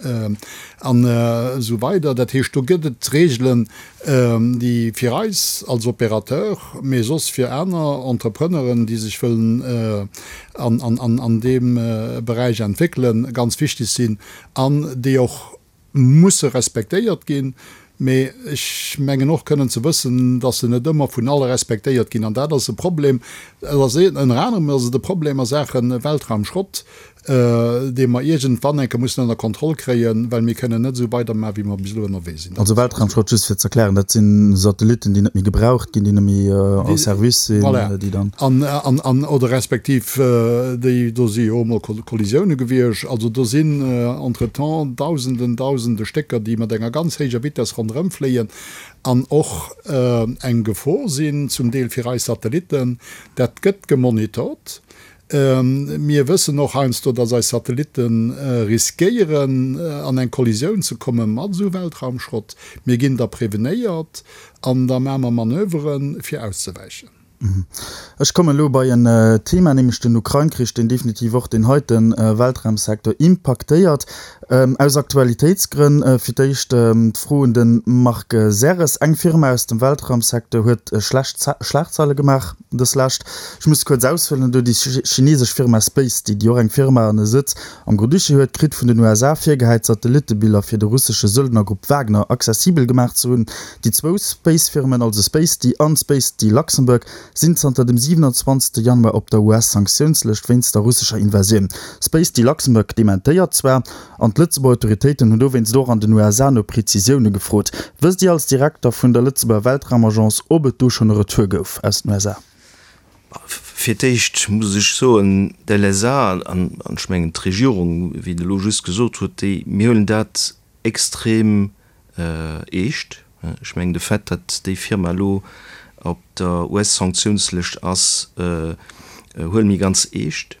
an esou weider. Dat heescht, do gëtt et Reegelen, déi fir eis als Opérateur, mee soss fir aner Entrepreneuren, déi sech wëllen an deem Beräich entwéckelen, ganz wichteg sinn an déi och musse respektéiert ginn. Mee ech mengen och kënnen ze wëssen, dass se net ëmmer vun alle respektéiert ginn. An dat ass e Problem. Et ass ënner anerem ass et e Problem a Saache Weltraumschrott, dee mer iergendwann eng Kéier mussen ënner Kontroll kréien, well mir kënnen net esou weidermachen, wéi mer bis elo ënnerwee sinn. Also Weltraumschrott, just fir ze erklären, dat si Satellitten, déi net méi gebraucht ginn, déi net méi en service sinn, déi dann. Voilà. An, an, oder respektiv déi, do si jo och emol Kollisioune gewiescht. Also do sinn entretemps Dausenden, Dausende Stécker, déi mat enger ganz héijer Vitess ronderëmfléien an och eng Gefor sinn, zum Deel fir eis Satellitten. Dat gëtt gemonitort. Mir wëssen och heiansdo, dass eis Satellitte riskéieren, an eng Kollisioun ze komme mat esou Weltraumschrott. Mir ginn da prevenéiert an da maache mer Manöveren, fir auszewäichen. Ech kommen elo bei en Thema, nämlech den Ukrain-Krich, deen definitiv och deen heite Weltraumsecteur impaktéiert. Aus Aktualitéitsgrënn fir d'éischt d'Fro un de Marc Serres. Eng Firma aus dem Weltraumsecteur huet schlecht Schlagzeile gemaach. Dës lescht, ech muss kuerz aushuelen, do déi chinesesch Firma Spacety, déi och eng Firma an e Sëtz am Grand-Duché huet, kritt vun den USA virgehäit, Satellitebiller fir de russesche Söldnergrupp Wagner accessibel gemaach ze hunn. Déi zwou Space-Firmen, also Spacety an Spacety Luxembourg, sinn zanter dem 27. Januar op der US-Sanktiounslëscht wéinst der russescher Invasioun. Spacety Luxembourg dementéiert zwar, An d'Lëtzebuerger Autoritéiten hunn dowéinst och an den USA no Prezisioune gefrot. Wësst Dir als Direkter vun der Lëtzebuerger Weltraumagence, ob et do schonn e Retour gouf aus den USA? Fir d'éischt muss ech soen, d'LSA an ech mengen d'Regierung, wéi et elo just gesot huet, déi, mir huelen dat extrem eescht. Ech mengen de Fait, datt déi Firma elo op der US-Sanktiounslëscht ass, huele mir ganz eescht.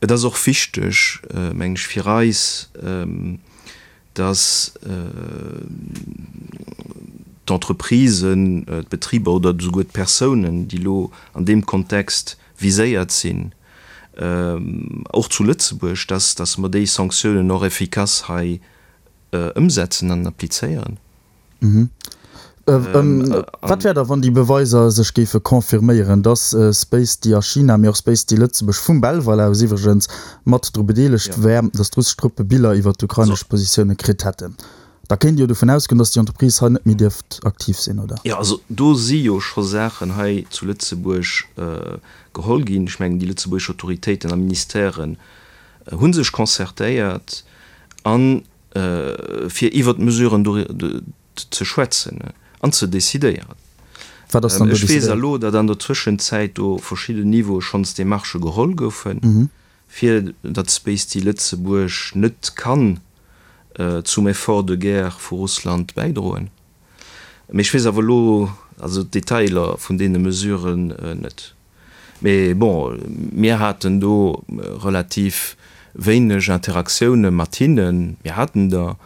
Et ass och wichteg, mengen ech, fir eis, dass d'Entreprisen, d'Betriber oder esouguer d'Persounen, déi elo an deem Kontext viséiert sinn, och zu Lëtzebuerg, dass, dass mer déi Sanktiounen och effikass hei ëmsetzen an applizéieren. Wat wär da, wann déi Beweiser sech géife confirméieren, dass Spacety a China, mee och Spacety Lëtzebuerg, vum Belval aus iwwregens, mat dru bedeelegt wär, dass d'russesch Truppe Biller iwwer d'ukrainesch Positioune kritt hätten? Da kéint ee jo dovun ausgoen, dass déi Entreprise hei net méi dierft aktiv sinn, oder? Jo, also do si jo scho Saachen hei zu Lëtzebuerg geholl ginn. Ech mengen, déi lëtzebuergesch Autoritéiten a Ministèren hu sech concertéiert an fir iwwert d'Mesuren do ze schwätzen an ze decidéieren. Wat ass dann do Ech weess decidéiert? elo, datt an der Zwëschenzäit do verschidden Niveaue schonns Demarchë geholl goufen, fir datt Spacety Lëtzebuerg net kann zum Effort de guerre vu Russland bäidroen. Mee ech weess awer elo also d'Detailer vun deene Mesuren net. Mee bon, mir haten do relativ wéineg Interaktioune mat hinnen. Mir haten der,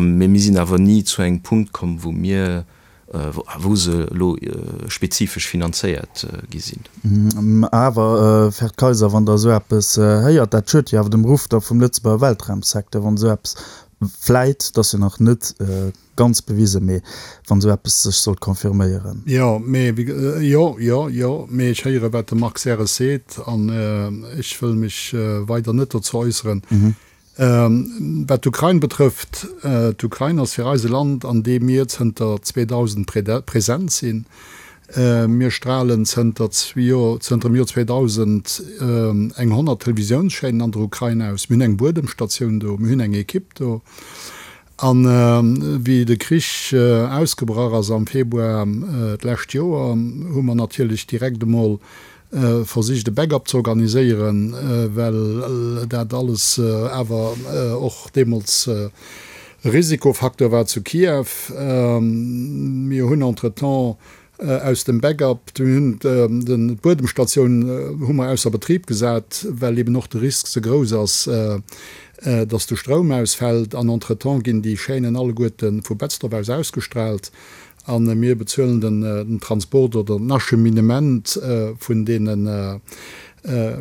mee mir sinn awer ni zu engem Punkt komm, wou mir, wou se elo spezifesch finanzéiert gi sinn. Awer, Ferd Kayser, wann Der esou eppes héiert, dat schued jo awer dem Ruff da vum Lëtzebuerger Weltraumsecteur, wann esou eppes vläit, et ass jo nach net Ganz bewisen, mee wann esou eppes sech sollt confirméieren. Jo, mee wéi, jo, jo, jo, mee ech héiere wat de Marc Serres seet an ech wëll mech weider net dozou äusseren. Wat d'Ukrain betrëfft, d'Ukrain ass fir eis e Land, an deem mir zënter 2000 present sinn. Mir stralen zënter zënter dem Joer 2000 eng 100 Televisiounschaînen an der Ukrain aus. Mir hunn eng Buedemstatioun do, mir hunn eng Ekipp do. An wéi de Krich ausgebrach ass am Februar d'lescht Joer, hu mer natierlech direkt emol versicht e Backup ze organiséieren, well dat alles awer och deemools e Risikofacteur war zu Kiew. Mir hunn entretemps Aus dem Backup, mir hunn d'Buedemstatioun hu mer ausser Betrib gesat, well eben och de Risk ze grouss ass, dass de Stroum ausfält. An entretemps ginn déi Chaînen alleguerte vu Betzdorf aus ausgestrahlt a mir bezuelen den Transport oder den Acheminement vun deene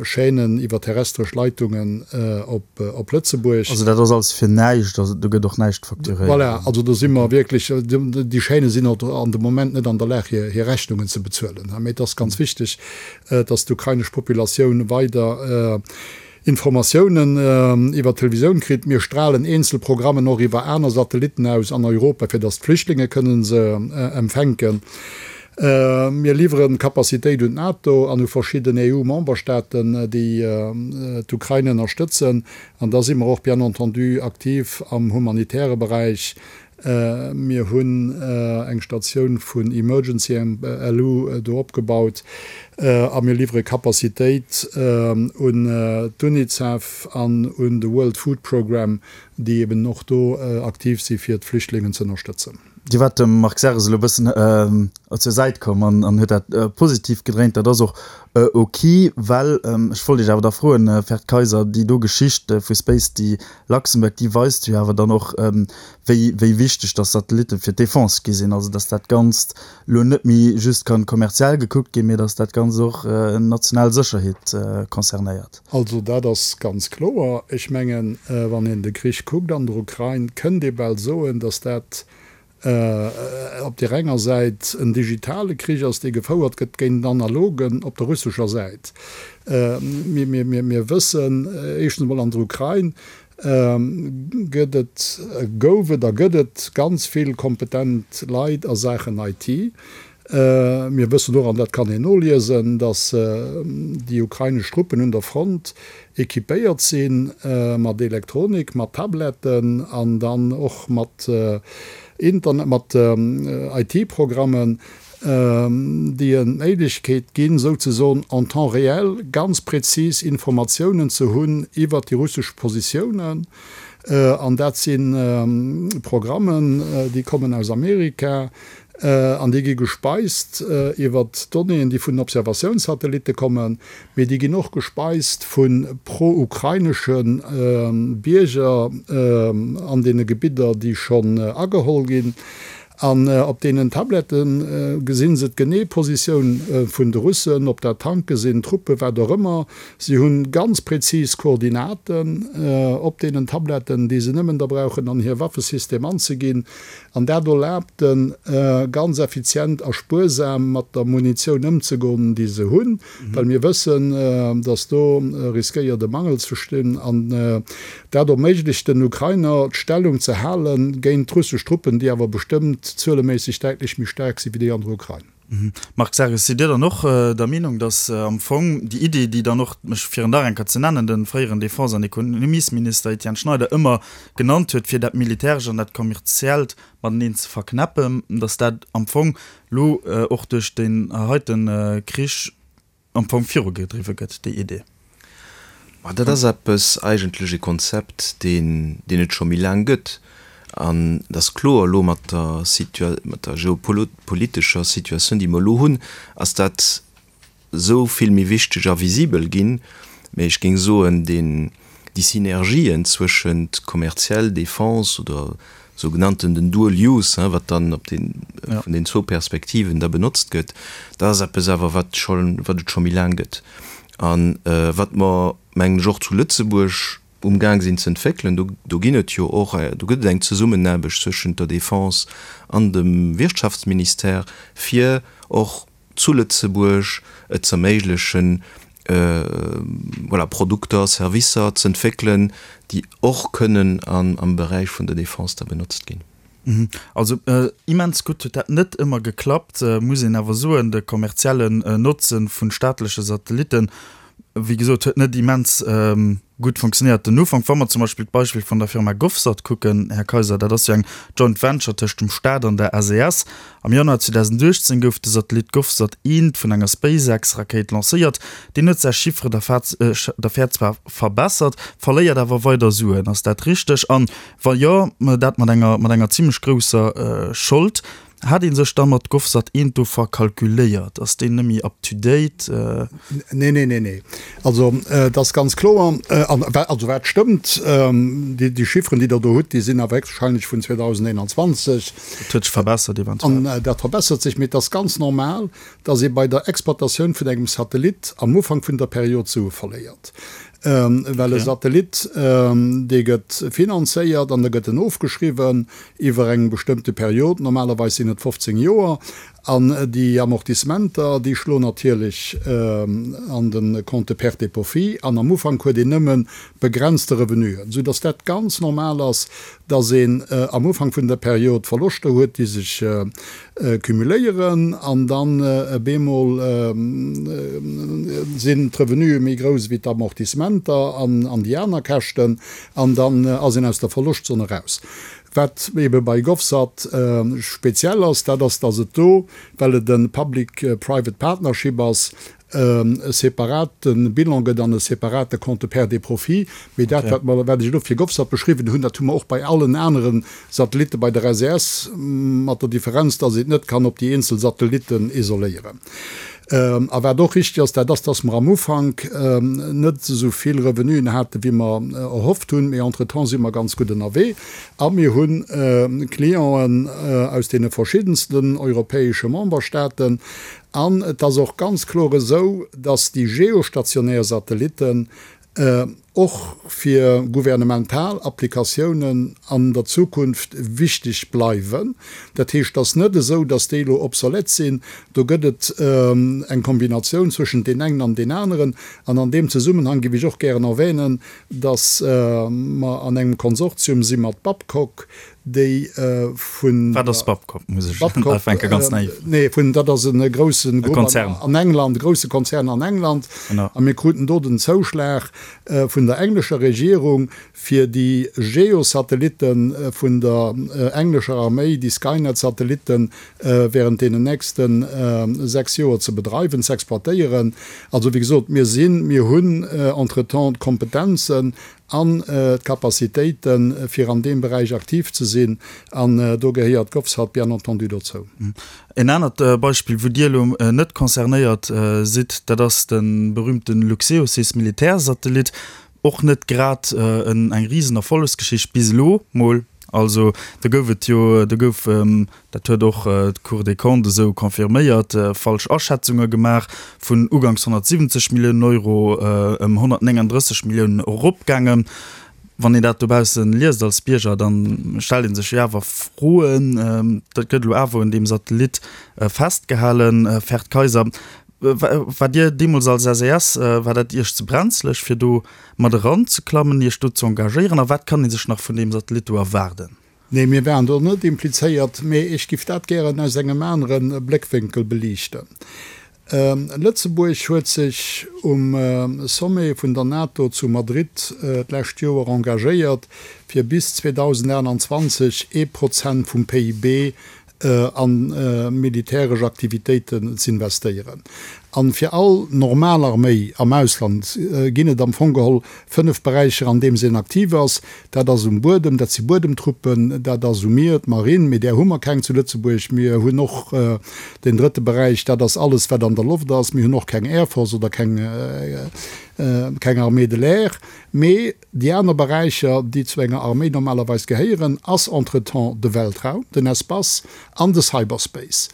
Chaînen iwwer terrestresch Leitungen op Lëtzebuerg. Also dat ass alles fir näischt, also do gëtt och näischt facturéiert? Voilà, also do si mer wierklech, déi Chaîne sinn och an de Moment net an der Lag hir Rechnungen ze bezuelen. Mee et ass ganz wichteg, datt d'ukrainesch Populatioun weider. Informatiounen iwwer d'Televisioun kritt. Mir stralen eenzel Programmen och iwwer aner Satellitten aus an Europa, fir datt d'Flüchtlinge kënnen se empfänken. Mir liwweren Capacitéit un d'NATO an u verschidden EU-Memberstaaten, déi d'Ukrain ënnerstëtzen. An da si mer och bien entendu aktiv am humanitäre Beräich. Mir hunn eng Statioun vun Emergency LU do opgebaut a mir liwwere Capacitéit un d'UNICEF an un de World Food Programme, déi eben och do aktiv si fir d'Flüchtlingen ze ënnerstëtzen. Dir waart dem Marc Serres elo e bëssen zur Säit komm an huet dat positiv gedréint. Dat ass och ok, well ech wollt Iech awer da froen, Ferd Kayser, déi do Geschicht vu Space déi Luxembourg, déi weist jo awer dann och, wéi wéi wichteg dass Satellitte fir d'Defense gi sinn. Also dass dat Ganzt elo net méi just kann kommerziell gekuckt ginn, mee dass dat Ganzt och national Sécherheet concernéiert. Also dat ass ganz kloer. Ech mengen, wann een de Krich kuckt an der Ukrain, kënnt ee bal soen, dass dat op där enger Säit en digitale Krich ass, dee gefouert gëtt géint en analogen op der russescher Säit. Mir wëssen éischtens emol, an der Ukrain gëtt et, gouf et a gëtt et ganz vill kompetent Leit a Saachen IT. Mir wëssen och, an dat kann een noliesen, datt déi ukrainesch Truppen un der Front equipéiert si mat Elektronik, mat Tabletten an dann och mat Internet, mat IT-Programmen, déi en d'Méiglechkeet ginn, souzesoen en temps réel ganz prezis Informatiounen ze hunn iwwert déi russesch Positiounen. An dat si Programmen, déi kommen aus Amerika, An déi gi gespeist iwwert Donnéeën, déi vun den Observatiounssatellitte kommen, mee déi ginn och gespeist vu pro-ukrainesche Bierger an deene Gebidder, déi schonn ageholl ginn. An op deenen Tablette gesi se d'genee Positioun vun de Russen, ob dat Tanke sinn, Truppen, wat och ëmmer. Si hu ganz prezis Koordinaten op deenen Tabletten, déi se nëmmen da brauchen an hir Waffesystem anzeginn. An dat erlaabt en, ganz effizient a spuersam mat der Munitioun ëmzegoen, déi se hunn, well mir wëssen, dass do riskéiert e Mangel ze stinn. An dat erméiglecht den Ukrainer, d'Stellung ze hale géint d'russesch Truppen, déi awer bestëmmt zueleméisseg däitlech méi staark si wéi déi an der Ukrain. Marc Serres, Sidd Dir dann och der Meenung, datt am Fong déi Iddi, déi dann och, mech fir en nach eng Kéier ze nennen, de fréieren Defense an Ekonomiesminister Etienne Schneider ëmmer genannt huet, fir dat Militärescht an dat Kommerziellt mateneen ze verknäppen, datt dat am Fong elo och duerch deen heite Krich am Fong virugedriwwe gëtt, déi Idee? Ma dat ass eppes, eigentlech e Konzept, deen, deen et scho méi laang gëtt. An et ass kloer, elo mat der Situa-, mat der geopolitescher Situatioun, déi mer elo hunn, ass dat esou vill méi wichteg a visibel ginn. Mä ech géing soen, deen, déi Synergien zwëschent kommerziell Défense oder sougenannten den Dual Use, hein, wat dann op den, vun den zwou Perspektiven da benotzt gëtt, dat ass eppes awer, wat scho, wat et scho méi laang gëtt a wat mer, mengen ech, och zu Lëtzebuerg umgaang sinn ze entwéckelen. Do, do ginn et jo och, do gëtt et eng Zesummenaarbecht zwëschent der Défense an dem Wirtschaftsministère, fir och zu Lëtzebuerg et z'erméiglechen, voilà, Produkter, Servicer z'entwéckelen, déi och kënnen am Beräich vun der Defense da benotzt ginn. Also immens gutt huet dat net ëmmer geklappt, muss een awer soen. De kommerziellen Notze vu staatleche Satellitten, wéi gesot, huet net immens gutt funktionéiert den Ufank. Wa mer zum Beispill d'Beispill vun der Firma GovSat kucken, Här Kayser, dat ass jo eng Joint Venture tëscht dem Staat an der SES. Am Januar 2018 gouf de Satellit GovSat I vun enger SpaceX-Rakéit lancéiert. Deen huet säi Chiffre d'affaires zwar verbessert, verléiert awer weider Suen. Ass dat richteg? An wa jo, dat mat enger mat enger zimlech grousser Schold. Hat ee sech da mat GovSat I do verkalkuléiert? Ass deen nëmmi up to date? Nee, nee, nee, nee. Also et ass ganz kloer, an also wat stëmmt, déi Chiffren, déi Der do hutt, déi sinn awer héchstwahrscheinlech vun 2021. Dat huet sech verbessert eventuell. An dat verbessert sech, mee et ass ganz normal, dass ee bei der Exploitatioun vun engem Satellit am Ufank vun der Period Sue verléiert. Well e Satellit, dee gëtt finanzéiert an da gëtt en ofgeschriwwen iwwer eng bestëmmte Period, normalerweis sinn et 15 Joer. An déi Amortissementer, déi schloen natierlech an de Compte pertes et profits an am Ufank huet een nëmme begrenzte Revenuen, soudass dat ganz normal ass, dass een am Ufank vun der Period Verloschter huet, déi sech cumuléieren an dann bemol sinn d'Revenue méi grouss wéi d'Amortissementer an déi aner Käschten an dann ass een aus der Verloschtzon eraus. Wat ebe bei GovSat speziell ass, dat ass, dass et do, well et e Public-Private Partnership ass, e separate Bilan gëtt an e separate Compte pertes et profits. Mee dat, wat mer, wat ech elo fir GovSat beschriwwen hunn, dat hu mer och bei allen anere Satellitte bei der SES, mat der Differenz, dass een et net kann op déi eenzel Satellitten isoléieren. A wat och richtig ass, dat ass, dass mer am Ufank net esou vill Revenuen haten, wéi mer erhofft hunn, mee entretemps si mer ganz gutt ënnerwee a mir hu Clienten aus deene verschiddensten europäesche Memberstaaten. An et ass och ganz kloer esou, dass déi geostationär Satellitten och fir gouvernemental Applikatiounen an der Zukunft wichteg bleiwen. Dat heescht, et ass net esou, datt déi elo obsolète sinn. Do gëtt et eng Kombinatioun zwëschent deen engen an deen aneren. An an deem Zesummenhang géif ech och gären erwänen, datt mer an engem Konsortium si mat Babcock, déi vun Wat ass Babcock? Muss ech ufänken, ganz naiv. Nee, vun, dat ass e groussen Grupp an England, e grousse Konzern an England. A mir kruten do den Zouschlag vun der englescher Regierung, fir déi Geosatellitte vun der englescher Arméi, déi Skynet-Satellitten, während deenen nächste 6 Joer ze bedreiwen, ze exploitéieren. Also, wéi gesot, mir sinn, mir hunn entretemps d'Kompetenzen an d'Capacitéiten, fir an deem Beräich aktiv ze sinn, an do gehéiert d'GovSat bien entendu dozou. En anert Beispill, wou Dir elo net concernéiert sidd, dat ass de berühmte Luxeosys Militärsatellit. Och net grad eng Risenerfollegsgeschicht bis elo mol. Also do gouf et jo, do gouf, dat huet och d'Cour des Comptes esou confirméiert, falsch Aschätzunge gemaach, vun uganks 170 Milliounen Euro ëm 139 Milliounen eropgaangen. Wann een dat dobausse liest als Bierger, da stellt ee sech jo awer Froen. Dat gëtt elo awer un deem Satellit festgehalen. Ferd Kayser, waart Dir deemools als SES, war dat Iech ze brenzleg, fir do mat eranzeklammen, Iech do ze engagéieren? A wat kann ee sech nach vun deem Satellit do erwaarden? Nee, mir waren do net implizéiert, mee ech giff dat gären aus engem anere Bléckwénkel beliichten. Lëtzebuerg huet sech um Sommet vun der NATO zu Madrid d'lescht Joer engagéiert, fir bis 2028 ee Prozent vum PIB a militäresch Aktivitéiten z'investéieren. A fir all normal Arméi am Ausland ginn et am Fong geholl 5 Beräicher, an deem se aktiv ass. Dat ass um Buedem, dat si Buedemtruppen, dat ass um Mier, d'Marine, mee där hu mer keng zu Lëtzebuerg. Mir hunn och den drëtte Beräich, dat ass alles, wat an der Loft ass. Mir hunn och keng Air Force oder keng Armée de l'air. Mee Déi aner Beräicher, déi zu enger Arméi normalerweis gehéieren, ass entretemps de Weltraum, den Espace an de Cyberspace.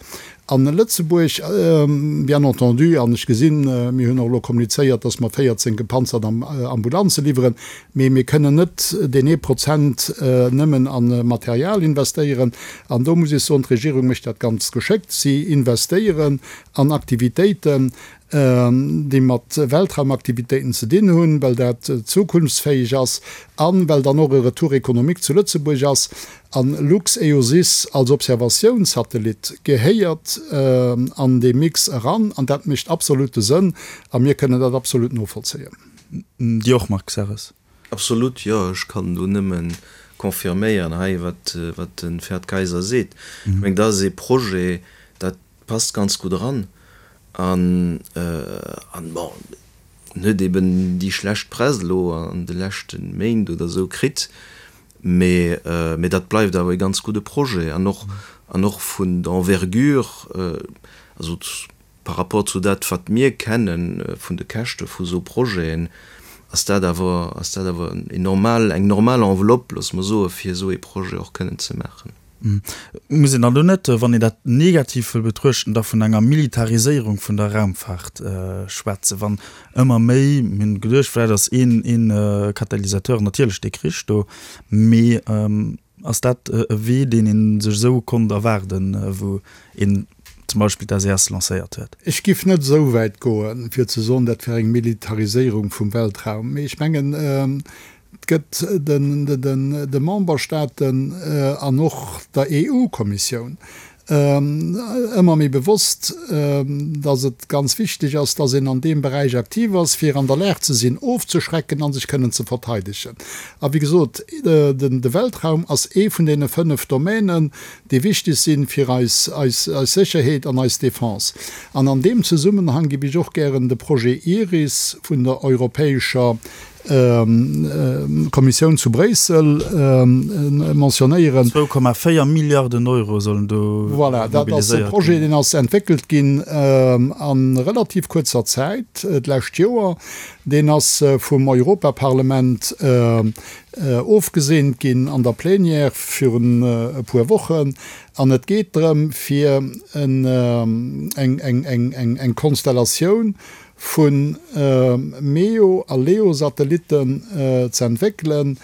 An Lëtzebuerg, bien entendu, an ech gesinn, mir hunn och elo kommunizéiert, dass mer 14 gepanzert Ambulanze liwweren, mee mir kënnen net deen ee Prozent nëmmen a Material investéieren. An do muss ech soen, d'Regierung mécht dat ganz geschéckt. Si investéieren an Aktivitéiten, déi mat Weltraumaktivitéiten ze dinn hunn, well dat zukunftsfäeg ass a well dann och e Retour économique zu Lëtzebuerg ass. A LuxEOSys als Observatiounssatellit gehéiert an dee Mix eran an dat mécht absolute Sënn a mir kënnen dat absolut novollzéien. Dir och, Marc Serres? Absolut, jo. Ech kann do nëmme confirméieren hei, wat de Ferd Kayser seet. Ech mengen, dat ass ee Projet, dat passt ganz gutt eran an an bon en huet eben déi schlecht Press elo an de leschte Méint oder esou kritt, mee mee dat bleift awer e ganz gudde Projet an och an och vun der Envergure, also par rapport zu dat wat mir kenne vun de Käschte vu sou Projeten, ass dat awer ass dat awer en normal eng normal Enveloppe, loosse mer soe fir esou ee Projet och kënnen ze maachen. Muss een dann do net, wann een dat negativ wëll betruechten, da vun enger Militariséierung vun der Raumfahrt schwätzen, wann ëmmer méi, mir hunn geduecht, vläicht ass een ee Katalysateur natierlech dee Krich do, mee ass dat e Wee, deen ee sech esou konnt erwaarden, wou een. zum Beispill d'SES lancéiert huet? Ech giff net esou wäit goen, fir ze soen, dat wär eng Militariséierung vum Weltraum. Mee ech mengen, et gëtt de Memberstaaten an och der EU-Kommissioun ëmmer méi bewosst, dass et ganz wichteg ass, dass een an deem Beräich aktiv ass, fir an der Lag ze sinn, ofzeschrecken a sech kënnen ze verteidegen. A wéi gesot, de Weltraum ass ee vun deene 5 Domänen, déi wichteg sinn fir eis Sécherheet an eis Defense. An an deem Zesummenhang géif ech och gären de Projet IRIS vun der Europäescher Kommissioun zu Bréissel mentionnéieren. 2,4 Milliarden Euro sollen do mobiliséiert ginn. Voilà, dat ass e Projet, deen ass entwéckelt ginn a relativ kuerzer Zäit, d'lescht Joer. Deen ass vum Europaparlament ofgeseent ginn an der Plénière virun e puer Wochen. An et geet drëm, fir eng Konstellatioun vu MEO a LEO-Satellitten ze entwéckelen,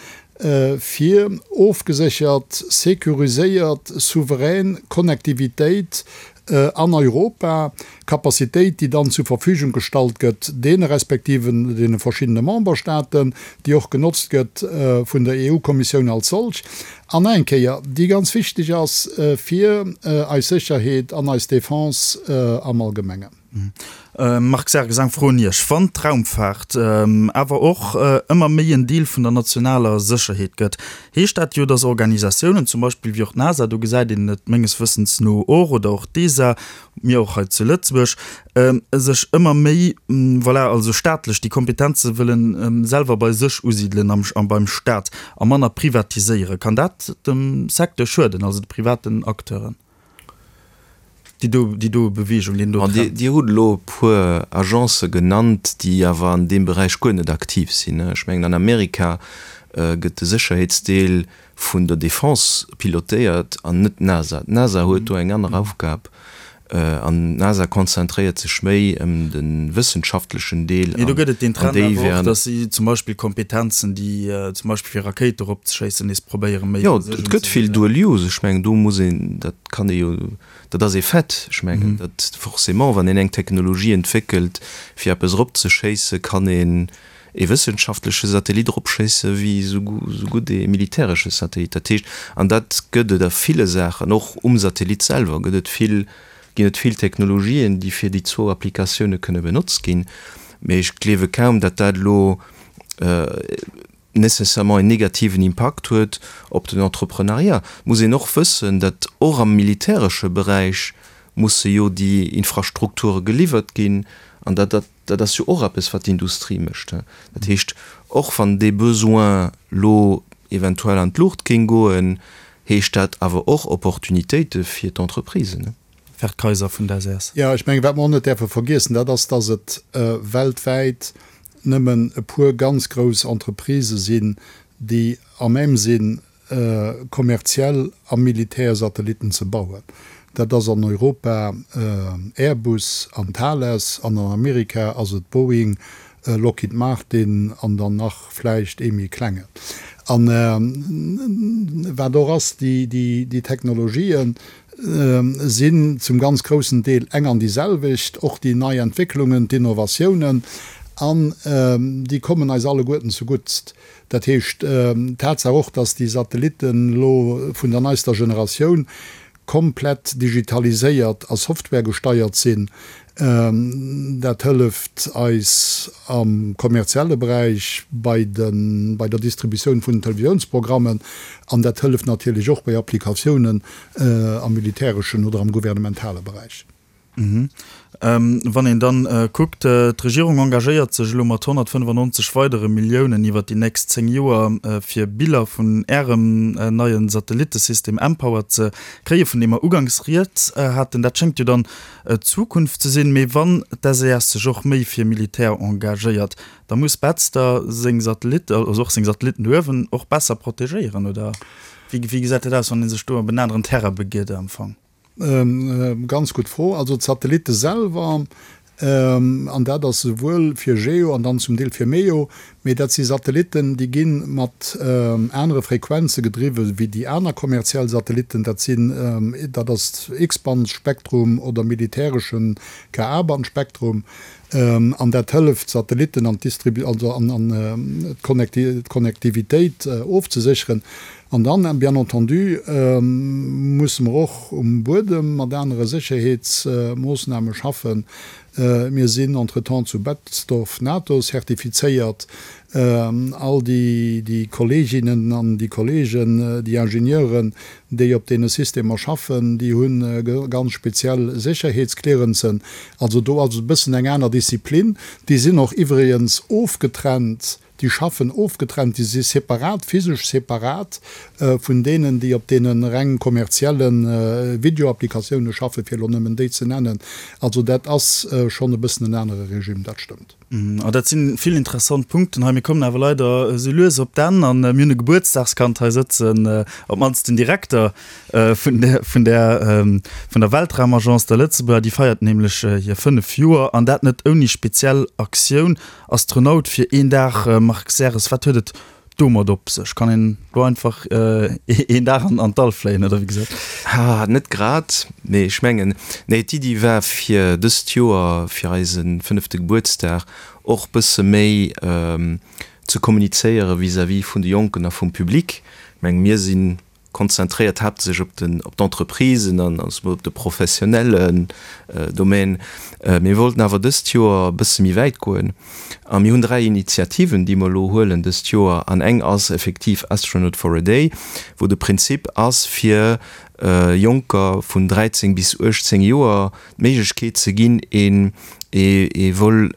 fir ofgeséchert, securiséiert, souverän Connectivitéit an Europa, Capacitéit, déi dann zur Verfügung gestallt gëtt deene respektiven, deene verschiddene Memberstaaten, déi och genotzt gëtt vun der EU-Kommissioun als solch, an eng Kéier, déi ganz wichteg ass fir eis Sécherheet an eis Defense am Allgemengen. Marc Serres, eng Fro un Iech, Wann d'Raumfaart awer och ëmmer méi en Deel vun der nationaler Sécherheet gëtt, heescht dat jo, datt Organisatiounen, zum Beispill wéi och d'NASA, do gesäit een et menges Wëssens no och, oder och d'ESA, mir och hei zu Lëtzebuerg, sech ëmmer méi, voilà, also staatlech déi Kompetenze wëllen selwer bei sech usidelen am beim Staat a manner privatiséieren. Kann dat dem Secteur schueden, also de privaten Acteuren? Déi do, déi do Bewegung, deen do Trend. Dir hutt elo e puer Agencë genannt, déi awer an deem Beräich guer net aktiv sinn. Ech mengen, an Amerika gëtt de Sécherheetsdeel vun der Defense pilotéiert an net d'NASA. D'NASA huet do eng aner Aufgab an d'NASA konzentréiert sech méi ëm de wëssenschaftlechen Deel. Mee do gëtt et deen Trend awer och, datt si zum Beispill Kompetenzen, déi zum Beispill fir Rakéite eropzeschéissen, nees probéiere méi. Jo, et gëtt vill Dual Use. Ech mengen, do muss een, dat kann ee jo, dat ass ee Fait. Ech mengen, datt forcément, wann een eng Technologie entwéckelt, fir eppes eropzeschéissen, kann een ee wëssenschaftleche Satellit eropschéisse wéi esou gutt ee militäresche Satellit. Dat heescht, an dat gëtt et a ville Saachen, och um Satellit selwer gëtt et vill, ginn et vill Technologien, déi fir déi zwou Applikatioune kënne benotzt ginn. Mee ech gleewe kaum, datt dat elo nécessairement en negativen Impakt huet op den Entreprenariat. Et muss een och wëssen, datt och am militäresche Beräich musse jo déi Infrastrukture geliwwert ginn an datt dat, Dat ass jo och eppes, wat d'Industrie mécht. Dat heescht, och wann dee Besoin lo eventuell an d'Luucht géing goen, heescht dat awer och Opportunitéite fir d'Entreprisen. Ferd Kayser vun der ses. Jo, ech mengen, wat mer och net däerfe vergiessen, dat ass, dass et weltwäit nëmmen e puer ganz grouss Entreprisë sinn, déi à même sinn, kommerziell a militär Satellitten ze bauen. Dat ass an Europa Airbus an Thales an an Amerika ass et Boeing, Lockheed Martin an dann nach vläicht ee méi klengen. An wat och ass, déi Technologien sinn zum ganz groussen Deel eng an déi selwecht, och déi nei Entwécklungen, d'Innovatiounen, an déi kommen eis alleguerten zeguttst. Dat heescht, d'Tatsaach och, dass déi Satellitten elo vun der neister Generatioun komplett digitaliséiert a softwaregesteiert sinn, dat hëlleft eis am kommerzielle Beräich bei de bei der Distributioun vun den Televisiounsprogrammen an dat hëlleft natierlech och bei Applikatiounen am militäreschen oder am gouvernementale Beräich. Wann een dann kuckt, d'Regierung engagéiert sech elo mat 195 weidere Milliounen iwwert déi nächst 10 Joer, fir Biller vun Ärem neie Satellittesystem mPower ze kréien, vun deem mer uganks rieds haten. Dat schéngt jo dann d'Zukunft ze sinn. Mee wann d'SES sech och méi fir Militär engagéiert, da muss Betzder seng Satellitte, also och seng Satellitten do uewen, och besser protegéieren, oder wéi gesäit dat aus, wann ee sech do op en aneren Terrain begitt am Fong? Ganz gutt Fro. Also d'Satellitte selwer. An dat ass esouwuel fir GEO an dann zum Deel fir MEO. Mee dat si Satellitten, déi gi mat anere Frequenze gedriwwe wéi déi aner kommerziell Satellitten. Dat sinn, dat ass X-Band-Spektrum oder militäresche Ka-Band-Spektrum. An dat hëlleft, d'Satellitten an d'Distribu-, also an d'Connectivitéit ofzesécheren. An dann, bien entendu, musse mer och um Buedem mat anere Sécherheetsmoossname schaffen. Mir sinn entretemps zu Betzdorf NATO-zertifizéiert. All déi Kolleeginnen an déi Kolleegen, déi Ingenieuren, déi op deene Systemer schaffen, déi hu ganz speziell Sécherheetsclearancen. Also do ass et e bëssen eng aner Disziplin. Déi sinn och iwwregens ofgetrennt, déi schaffen ofgetrennt, déi si separat, physesch separat vun deenen, déi op deene reng kommerzielle Videoapplikatioune schaffen, fir elo nëmmen déi ze nennen. Also dat ass schonn e bëssen en anere Regime, dat stëmmt. An dat si vill interessant Punkten hei. Mir kommen awer leider esou lues op d'Enn an mir hunn e Gebuertsdagskand hei sëtzen, op d'mannst den Direkter vun der, vun der, vun der Weltraumagence, der Lëtzebuerger. Déi feiert nämlech hir 5 Joer an dat net ouni speziell Aktioun. Astronaut fir een Dag, Marc Serres, wat huet et domat op sech? Kann een do einfach een Dag an d'All fléien oder wéi gesot? Ha, net grad, mee ech mengen, nee, d'Iddi war fir dëst Joer, fir eise fënnefte Gebuertsdag, och bësse méi ze kommunizéiere vis-à-vis vun de Jonken a vum Public. Ech mengen, mir sinn konzentréiert haaptsächlech op den, op d'Entreprisen an op de professionellen Domaine. Mir wollten awer dëst Joer e bësse méi wäit goen a mir hunn 3 Initiativen, déi mer elo huelen dëst Joer. An eng ass effektiv Astronaut for a Day, wou de Prinzip ass, fir Jonker vun 13 bis 18 Joer d'Méiglechkeet ze ginn, een ee Vol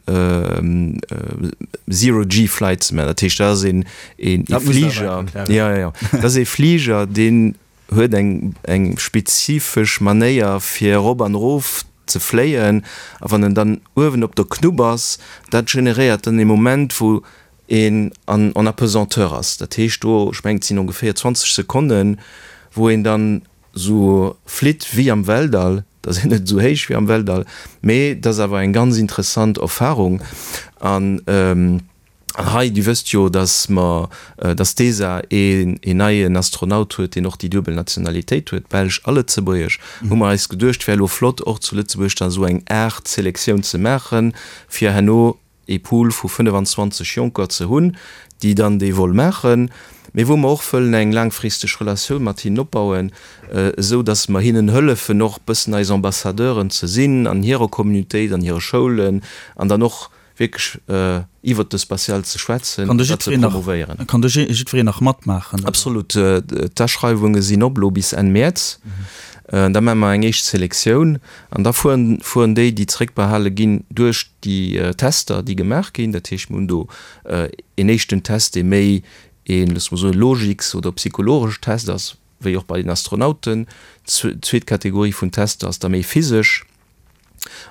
Zero-G Flight ze maachen. Dat heescht, dat ass een Fliger, jo, jo, dat ass ee Fliger, deen huet eng eng spezifesch Manéier fir erop an erof ze fléien. A wann en dann uewen op der Knupp ass, dat generéiert dann ee Moment, wou een an en apesanteur ass. Dat heescht do, ech mengen et sinn ongeféier 20 Sekonnen, wou een dann Sou flitt wéi am Weltall, et ass een net esou héich wéi am Weltall, mee et ass awer eng ganz interessant Erfahrung. An hei, Dir wësst jo, dass mer, dass d'ESA een neien Astronaut huet, deen och déi duebel Nationalitéit huet, belsch a lëtzebuergesch, hu mer eis geduecht, wär elo flott och zu Lëtzebuerg da sou eng Aart Selektioun ze maachen, fir herno ee Pool vu 25 Jonker ze hunn, déi dann dee Vol maachen, mee wou mer och wëllen eng laangfristeg Relatioun mat hinnen opbauen, esou datt mer hinnen hëllefen och bëssen eis Ambassadeuren ze sinn an hirer Communautéit, an hire Schoulen an dann och wierklech iwwert de Spatial ze schwätzen an dat ze promovéieren. Kann do jiddwereen nach matmaachen? Absolut. D'Aschreiwunge sinn op elo bis Enn Mäerz. Da maache mer eng éischt Selektioun an da fueren fueren déi, déi zeréckbehale ginn, duerch déi Tester, déi gemaach ginn. Dat heescht, mir hunn do een éischten Test, dee méi een, loosse mer soen, logiks oder psychologesch Test ass, wéi och bei den Astronauten. D'zweet Kategorie vun Tester ass da méi physesch.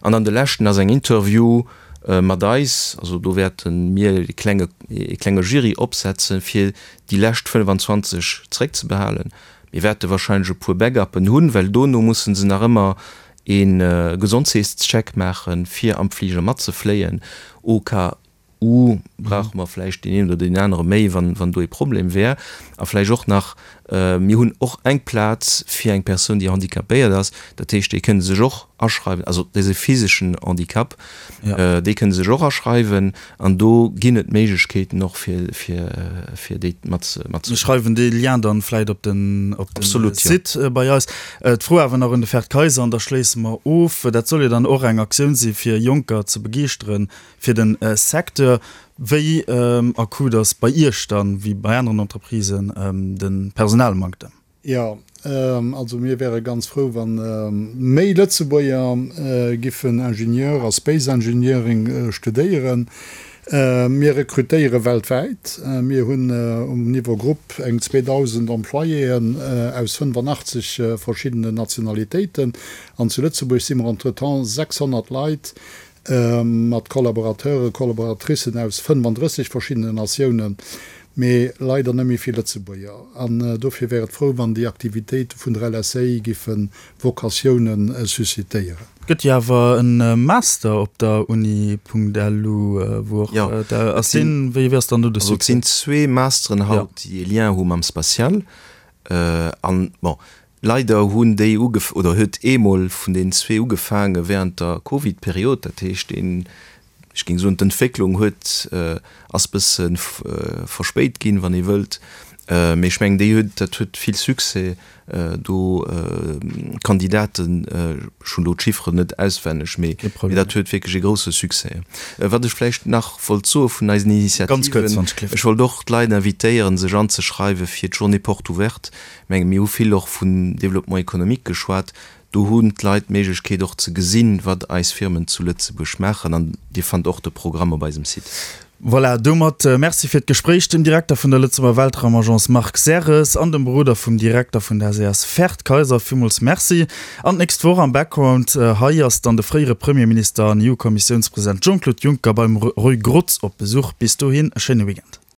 An dann de leschten ass eng Interview mat eis. Also do wäerte mir e klenge, e klenge Jury opsetzen, fir déi lescht 25 zeréckzebehalen. Mir wäerte wahrscheinlech e puer Backuppen hunn, well dono musse se nach ëmmer e Gesondheetscheck maachen, fir am Fliger matzefléien. Au cas où brauche mer vläicht deen een oder deen anere méi, wann do ee Problem wär. A vläicht och nach, mir hunn och eng Plaz fir eng Persoun, déi handicapéiert ass. Dat heescht, déi kënne sech och aschreiwen, also dee physeschen Handicap, déi kënne sech och aschreiwen. An do ginn et Méiglechkeeten och fir, fir, fir déi mat, mat. Mir schreiwen dee Lien dann vläit op den, op den Site bei eis. D'Fro awer nach un de Ferd Kayser an da schléisse mer of. Dat soll jo dann och eng Aktioun si fir Jonker ze begeeschteren fir den Secteur. Wéi akut ass bei Iech dann, wéi bei aneren Entreprisen, de Personalmanktem? Jo, also mir wäre ganz frou, wa méi Lëtzebuerger giffen Ingenieur a Space Engineering studéieren. Mir rekrutéiere weltwäit. Mir hunn um Niveau Grupp eng 2.000 Employéen aus 85 verschiddenen Nationalitéiten. An zu Lëtzebuerg si mer entretemps 600 Leit mat Collaborateuren, Collaboratricen aus 35 verschiddenen Natiounen. Mee leider net méi vill Lëtzebuerger. An dofir wär et frou, wann déi Aktivitéite vun der LSA giffe Vokatioune suscitéieren. Gëtt jo awer e Master op der Uni.lu, wou och Jo, ass deen, wéi ass dann do de Also et Succès? sinn zwee Masteren haut, déi e Lien hu mam Spatial. An, bon, leider hunn déi ugef-, oder huet eemol vun deenen zwee ugefaange während der Covid-Period. Dat heescht, deen, Ech géing soen, d'Entwécklung huet, ass bësse verspéit ginn, wann ee wëllt. Mee ech mengen, déi huet, dat huet vill Succès do. D'Kandidaten, ech hunn elo d'Chifferen net auswenneg, mee dat huet wierklech e grousse Succès. Wat ech vläicht nach wollt soe vun eisen Initiativen, ech wollt och d'Leit invitéieren, sech anzeschreiwe fir d'Journée porte ouverte. Ech menge mir hu vill och vun Développement économique geschwat. Do hunn d'Leit d'Méiglechkeet och ze gesinn, wat eis Firmen zu Lëtzebuerg maachen an Dir fannt och de Programm op eisem Site. Voilà, domat Merci fir d'Gespréich dem Direkter vun der Lëtzebuerger Weltraumagence Marc Serres an dem Beroder vum Direkter vun der SAS Ferd Kayser. Villmools Merci. An d'nächst Woch am Background hei ass dann de fréiere Premierminister an EU-Kommissiounspresident Jean-Claude Juncker beim Roy Grotz op Besuch. Bis dohin e schéine Weekend.